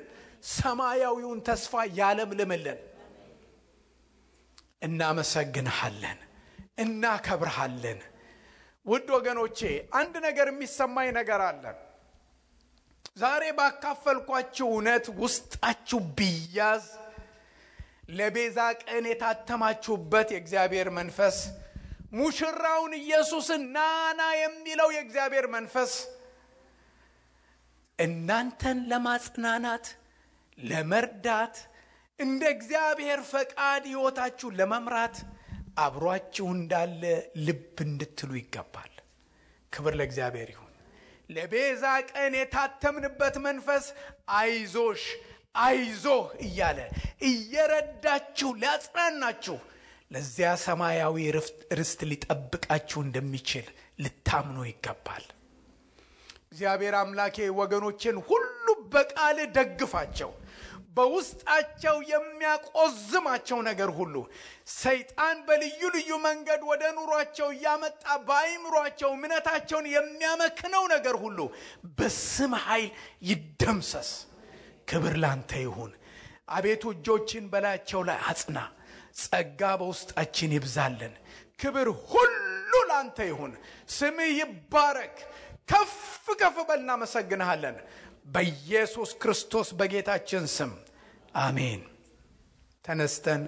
ሰማያዊውን ተስፋ ያለምልምልን። እናመሰግንሃለን፣ እናከብርሃለን። ውድ ወገኖቼ አንድ ነገር የሚሰማኝ ነገር አለ። ዛሬ ባካፈልኳችሁ እውነት ውስጣችሁ ቢያዝ ለቤዛ ቀን የታተማችሁበት የእግዚአብሔር መንፈስ ሙሽራውን ኢየሱስን ናና የሚለው የእግዚአብሔር መንፈስ እናንተን ለማጽናናት ለመርዳት እንደ እግዚአብሔር ፈቃድ ሕይወታችሁ ለመምራት አብሯችሁ እንዳለ ልብ እንድትሉ ይገባል። ክብር ለእግዚአብሔር ይሁን። ለቤዛ ቀን የታተምንበት መንፈስ አይዞህ እያለ እየረዳችሁ ሊያጽናናችሁ ለዚያ ሰማያዊ ርስት ሊጠብቃችሁ እንደሚችል ልታምኑ ይገባል። እግዚአብሔር አምላኬ ወገኖችን ሁሉ በቃል ደግፋቸው። በውስጣቸው የሚያቆዝማቸው ነገር ሁሉ ሰይጣን በልዩ ልዩ መንገድ ወደ ኑሯቸው ያመጣ በአይምሯቸው እምነታቸውን የሚያመክነው ነገር ሁሉ በስም ኃይል ይደምሰስ። ክብር ላንተ ይሁን። አቤቱ እጆችን በላያቸው ላይ አጽና፣ ጸጋ በውስጣችን ይብዛልን። ክብር ሁሉ ላንተ ይሁን። ስምህ ይባረክ። ከፍ በል። እናመሰግንሃለን በኢየሱስ ክርስቶስ በጌታችን ስም አሜን። ተነስተን